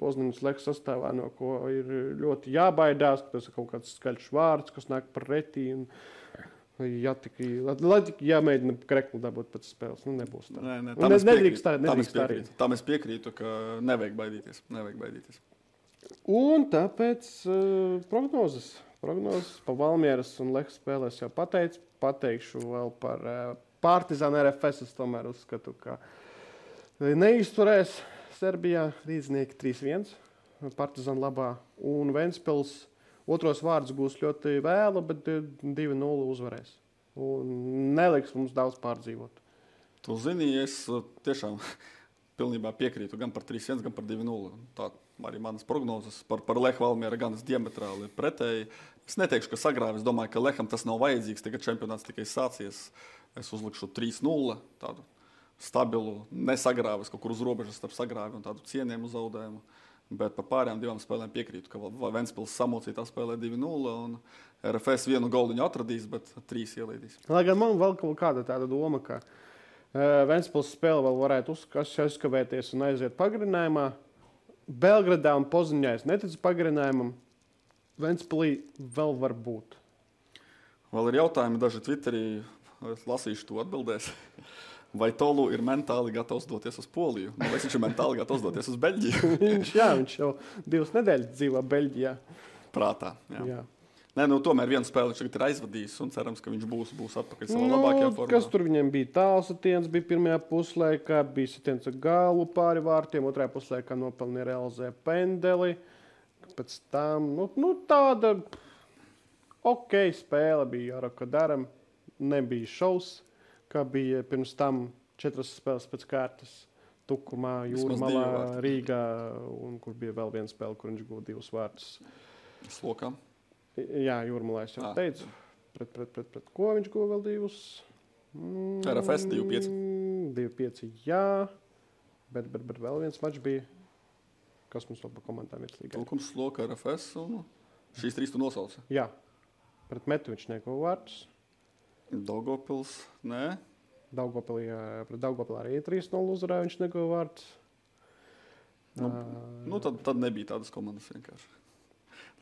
Poznaņas Lech sastāvā, no ko ir ļoti jābaidās, ka tas ir kaut kāds skaļš vārds, kas nāk pretī. Ja tik jāmēģina kreklu dabūt pēc spēles, nebūs tā. Nē, tam es piekrītu, ka nevajag baidīties. Un tāpēc prognozes par Valmieras un Lehas spēlēs jau pateikšu vēl par Partizānu RFS. Es tomēr uzskatu, ka neizturēs Serbijā rīdznieki 3-1 Partizānu labā un Ventspils otros vārdus gūs ļoti vēlu, bet 2-0 uzvarēs. Un neliks mums daudz pārdzīvot. Tu zini, es tiešām pilnībā piekrītu gan par 3-1, gan par 2-0. Tā arī manas prognozes par Lehu Valmiera gan diametrāli pretēji. Es neteikšu, ka sagrāvi. Es domāju, ka Leham tas nav vajadzīgs, tagad čempionāts tikai sācies. Es uzlikšu 3-0, tādu stabilu, nesagrāvis kaut kur uz robežas starp sagrāvi un tādu cienījumu zaudējumu. Bet par pārējām divām spēlēm piekrītu, ka Ventspils samocītā spēlē 2-0 un RFS vienu goldiņu atradīs, bet 3 ielaidīs. Lai gan man vēl kaut kāda tāda doma, ka Ventspils spēle vēl varētu uzkavēties un aiziet pagarinājumā. Belgradā un Poziņā es neticu pagarinājumam. Ventspilī vēl var būt. Vēl ir jautājumi daži Twitterī, es lasīšu to atbildēs. Vai Tolu ir mentāli gatavs doties uz Poliju? Vai viņš ir mentāli gatavs doties uz Beļģiju? viņš jau 2 nedēļas dzīvo Beļģijā. Prātā, jā. Nē, tomēr vienu spēli viņš tagad ir aizvadījis un cerams, ka viņš būs atpakaļ savā labākajā formā. Kas tur viņiem bija? Tāls sitiens bija pirmajā puslaikā, bija sitiens ar galu pāri vārtiem, otrajā puslaikā nopelnīja realizē pendeli. Pēc tam, tāda spēle bija Jaraka Daram, nebija šaus. Kā bija pirms tam 4 spēles pēc kārtas Tukumā, Jūrmalā, Rīgā, un kur bija vēl viena spēle, kur viņš guva 2 vārtus. Slokā? Jā, Jūrmalā es jau teicu. Pret ko viņš guva vēl 2? RFS 2-5. 2-5, jā. Bet vēl viens mačs bija. Kas mums vēl pa komandām ir slīgā? Tukums, Sloka, RFS un šīs 3 tu nosauci? Jā. Pret Metu viņš neguva vārtus. Daugavpils, nē. Pret Daugavpilī arī 3-0 uzvarēja, viņš neguva vārtus. Tad nebija tādas komandas vienkārši.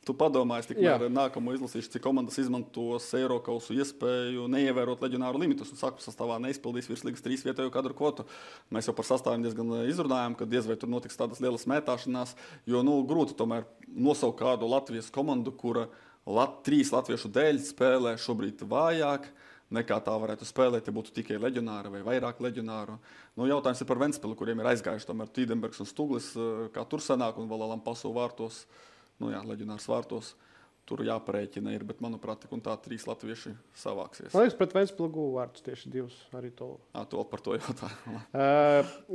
Tu padomāji, tikmēr nākamo izlasīšu, cik komandas izmantos Eirokausu iespēju neievērot leģionāru limitus un sākuma sastāvā neizpildīs virslīgas 3 vietējo kadru kvotu. Mēs jau par sastāviem diezgan izrunājām, ka diez vai tur notiks tādas lielas mētāšanās, jo grūti tomēr nosaukt kādu Latvijas komandu, kura 3 latviešu dēļ spēlē šobrīd vājāk nekā tā varētu spēlēt, ja būtu tikai leģionāri vai vairāk leģionāru. Jautājums ir par Ventspilu, kuriem ir aizgājuši tomēr Tīdenbergs un Stuglis, kā tur sanāk, un vēl Lampaso vārtos, leģionārs vārtos. Tur jāparēķina ir, bet, manuprāt, tik un tā 3 latvieši savāksies. Man liekas, pret Ventspilu guva vārtus tieši 2 arī to. To par to jautāju.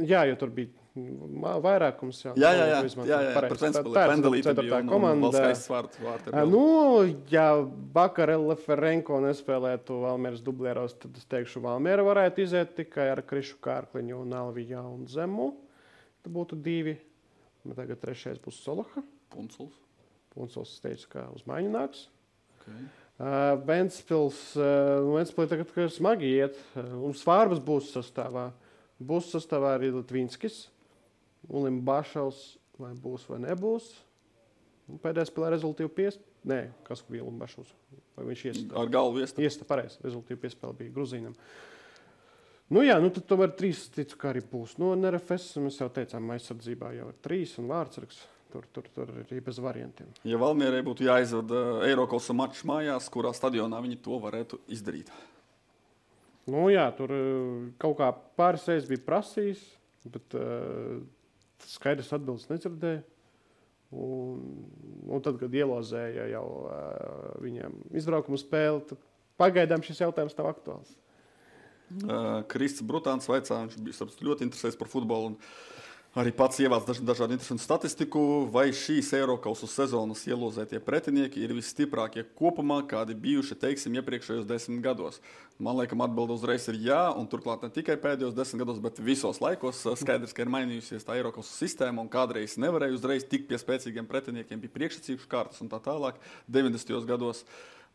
Jā, jo tur bija vairākums. Jā, pret Ventspilu pendelīte bija un vēl skaists vārti. Ja Bakarela Ferenko nespēlētu Valmieras dublieros, tad es teikšu, Valmiera varētu iziet tikai ar Krišu Kārkliņu un Alvijā un Zemu. Tad būtu 2. Tagad 3. būs Solaha. Punculs teica, ka uz maiņu nāks. Okay. Ventspilī tagad smagi iet. Un Svārbas būs sastāvā. Būs sastāvā arī Litvinskis. Ulim Bašaus vai būs vai nebūs. Un pēdējā spēlē rezultīvu piespēlē. Nē, kas bija Ulim Bašaus? Vai viņš iesta? Ar galvu iesta. Iesta, pareizi. Rezultīvu piespēle bija Gruzīnam. Tad tomēr 3 ticu, kā arī būs. RFS mēs jau teicām, aizsardzībā jau ir 3 un vārdsargs. Tur ir arī bez variantiem. Ja Valmierai būtu jāizvada Eirokausa mačs mājās, kurā stadionā viņi to varētu izdarīt? Tur kaut kā pāris reizes bija prasījis, bet skaidrs atbildes nedzirdēja. Un tad, kad ielozēja jau viņiem izbraukumu spēli, tad pagaidām šis jautājums nav aktuāls. Krists Brutāns vaicā, viņš bija ļoti interesēs par futbolu un arī pats ievāc dažādu interesantu statistiku, vai šīs Eirokausu sezonas ielozētie pretinieki ir visstiprākie kopumā, kādi bijuši, iepriekšējos 10 gados. Man liekas, atbilde uzreiz ir jā, un turklāt ne tikai pēdējos 10 gados, bet visos laikos skaidrs, ka ir mainījusies tā Eirokausu sistēma, un kādreiz nevarēja uzreiz tikt pie spēcīgiem pretiniekiem, bija priekšsacījuši kārtas un tā tālāk 90. gados.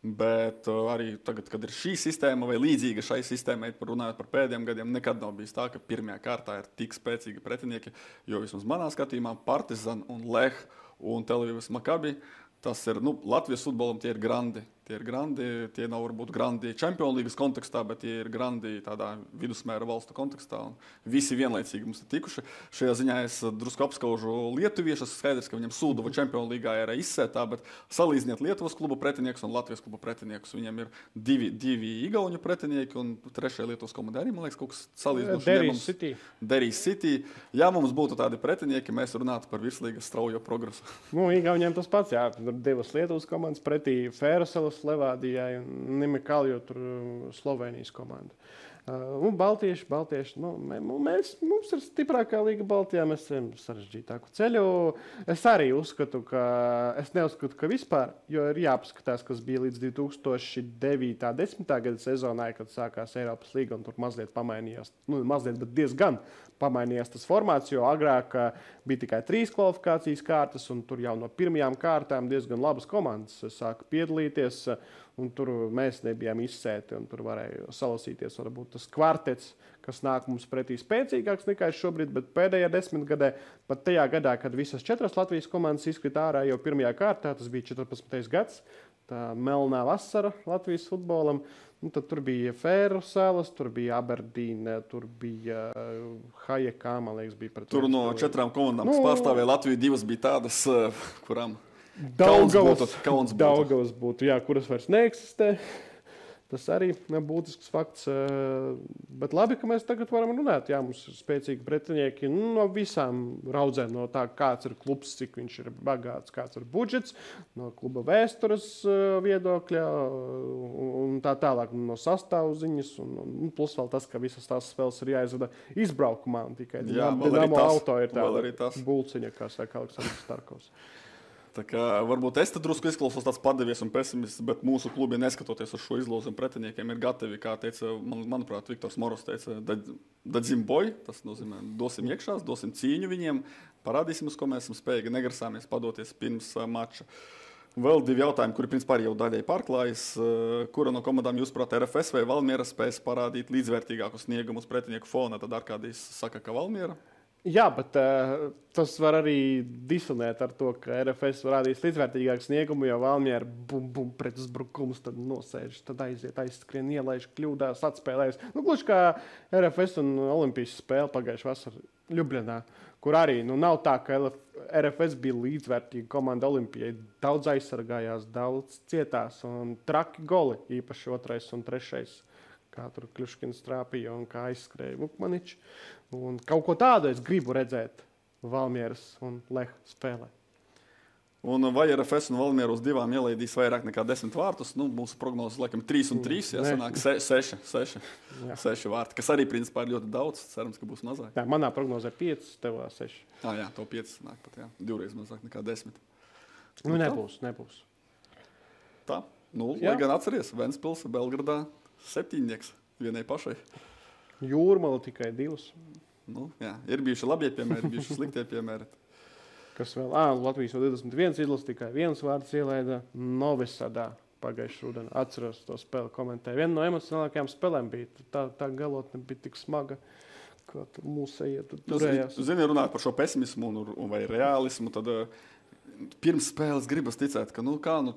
Bet arī tagad, kad ir šī sistēma vai līdzīga šai sistēmai, runājot par pēdējiem gadiem, nekad nav bijis tā, ka pirmajā kārtā ir tik spēcīgi pretinieki, jo vismaz manā skatījumā Partizan un Leh un Tel Avivas Makabi, tas ir, Latvijas futbolam tie ir grandi, tie ir grandi. Tie nav varbūt grandi Champions League kontekstā, bet tie ir grandi tādā vidusmēra valstu kontekstā. Un visi vienlaicīgi mums ir tikuši. Šajā ziņā es drusku apskaužu lietuviešus. Skaidrs, ka viņam Sūduva Champions League ir izsētā, bet salīdziniet Lietuvas klubu pretiniekus un Latvijas klubu pretiniekus. Viņam ir divi igauņu pretinieki un trešajā Lietuvas komandē arī, man liekas, kaut kas salīdzinoši. Derijas City. Ja mums būtu tādi pretinieki, mēs runātu par virslīgas straujo progresu. Igauņiem tas pats, jā. Tur divas Lietuvas komandas pretī Fēraselas Levādijai un Nimikalju tur Slovenijas komanda. Un Baltieši, mums ir stiprākā līga Baltijā, mēs esam sarežģītāku ceļu. Es arī uzskatu, es neuzskatu, ka vispār, jo ir jāpaskatās, kas bija līdz 2009.10. gada sezonai, kad sākās Eiropas līga un tur mazliet pamainījās, bet diezgan pamainījās tas formāts, jo agrāk bija tikai 3 kvalifikācijas kārtas un tur jau no pirmajām kārtām diezgan labas komandas sāka piedalīties. Un tur mēs nebijām izsēti, un tur varēja salasīties varbūt tas kvartets, kas nāk mums pretī spēcīgāks nekā šobrīd, bet pēdējā 10 gadē, pat tajā gadā, kad visas 4 Latvijas komandas izkrita ārā jau pirmajā kārtā, tas bija 14. gads, tā melnā vasara Latvijas futbolam, un tad tur bija Fēraselas, tur bija Aberdīne, tur bija Hajekā, man liekas, bija pret. Tur no 4 komandām, kas pārstāvēja Latviju, 2 bija tādas, kurām Daugavas būtu, jā, kuras vairs neeksistē. Tas arī būtisks fakts. Bet labi, ka mēs tagad varam runāt. Jā, mums ir spēcīgi pretinieki no visām raudzēm. No tā, kāds ir klubs, cik viņš ir bagāts, kāds ir budžets, no kluba vēstures viedokļa un tā tālāk. No sastāvziņas un plus vēl tas, ka visas tās spēles ir jāizvada izbraukumā. Un tikai Dinamo auto ir tāda bulciņa, kā saka Aleksandrs Starkovs. Tā kā varbūt es te drusku izklausos tāds padevies un pesimists, bet mūsu klubi, neskatoties uz šo izlozi un pretiniekiem, ir gatavi, kā teica, manuprāt, Viktors Moros teica, dadzim boj, tas nozīmē, dosim iekšās, dosim cīņu viņiem, parādīsim, uz ko mēs esam spējīgi, negrasāmies padoties pirms mača. Vēl 2 jautājumi, kuri principā arī jau daļai pārklājas. Kura no komandām jūs, prāt, RFS vai Valmiera spēs parādīt līdzvērtīgāku sniegumu uz pretinieku fona? Tad Arkādijs saka, ka Valmiera. Jā, bet tas var arī disonēt ar to, ka RFS rādīs līdzvērtīgāku sniegumu, jo Valmiera pret uzbrukumus tad nosēž, tad aiziet, aizskrien, ielaiž, kļūdās, atspēlējas. Gluži kā RFS un Olimpijas spēle pagājušajā vasarā Ljubljanā, kur arī nav tā, ka RFS bija līdzvērtīga komanda Olimpijai. Daudz aizsargājās, daudz cietās un traki goli, īpaši 2. un 3. Kā tur Kļuškins trāpīja un kā aizskrēja Vukmaničs. Un kaut ko tādu es gribu redzēt Valmieras un Leha spēlē. Un vai RFS un Valmiera uz 2 ielaidīs vairāk nekā 10 vārtus? Mūsu prognozes laikam 3 un 3, jāsanāk 6 vārti, kas arī principā ir ļoti daudz. Cerams, ka būs mazāk. Jā, manā prognozē 5, tevā 6. Jā, to 5 sanāk pat, jā. 2 mazāk nekā 10. Nebūs. Tā, lai gan atceries, Ventspils, Belgradā 7 vienai pašai. Jūrmala tikai 2. Jā, ir bijuši labie piemēri, bijuši sliktie piemēri. Kas vēl? Latvijas 21 izlase tikai 1 vārds ielaida Novisadā pagājušajā rudenī. Atceros to spēli komentēju. Viena no emocionālākajām spēlēm bija. Tā galotne bija tik smaga, ka mūsējie turējās. Zini, runāt par šo pesimismu vai realismu, tad pirms spēles gribas ticēt, ka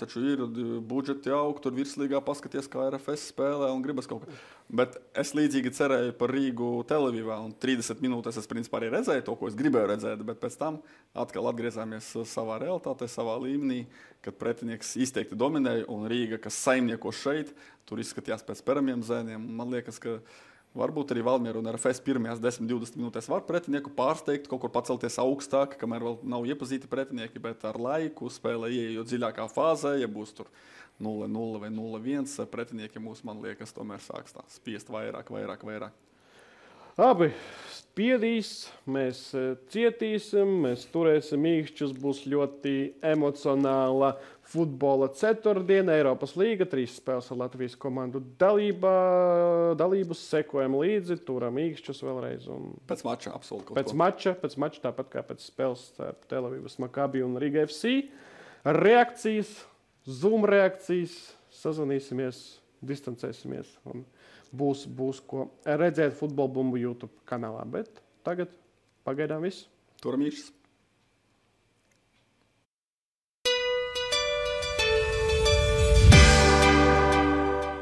taču ir budžeti aug, tur virslīgā paskaties, kā RFS spēlē un gribas kaut kā. Bet es līdzīgi cerēju par Rīgu Televīvā un 30 minūtes es principā arī redzēju to, ko es gribēju redzēt, bet pēc tam atkal atgriezāmies savā realitātē, savā līmenī, kad pretinieks izteikti dominēja un Rīga, kas saimnieko šeit, tur izskatījās pēc peramiem zēniem. Man liekas, ka varbūt arī Valmiera un RFS pirmajās 10-20 minūtēs var pretinieku pārsteigt, kaut kur pacelties augstāk, kamēr vēl nav iepazīti pretinieki, bet ar laiku spēlē ieejot dziļākā fāzē, ja būs tur 0-0 vai 0-1, pretinieki mūs, man liekas, tomēr sāks tā spiest vairāk. Abi spiedīs, mēs cietīsim, mēs turēsim īkšķus, būs ļoti emocionāla futbola ceturtdiena, Eiropas līga, 3 spēles ar Latvijas komandu dalību, sekojam līdzi, turam īkšķus vēlreiz. Pēc mača absolūti. Pēc mača, tāpat kā pēc spēles ar Telavivas Makabi un Riga FC. Reakcijas, Zoom reakcijas, sazvanīsimies, distancēsimies un būs ko redzēt Futbola Bumbu YouTube kanālā. Bet tagad pagaidām viss. Turam īkšķus.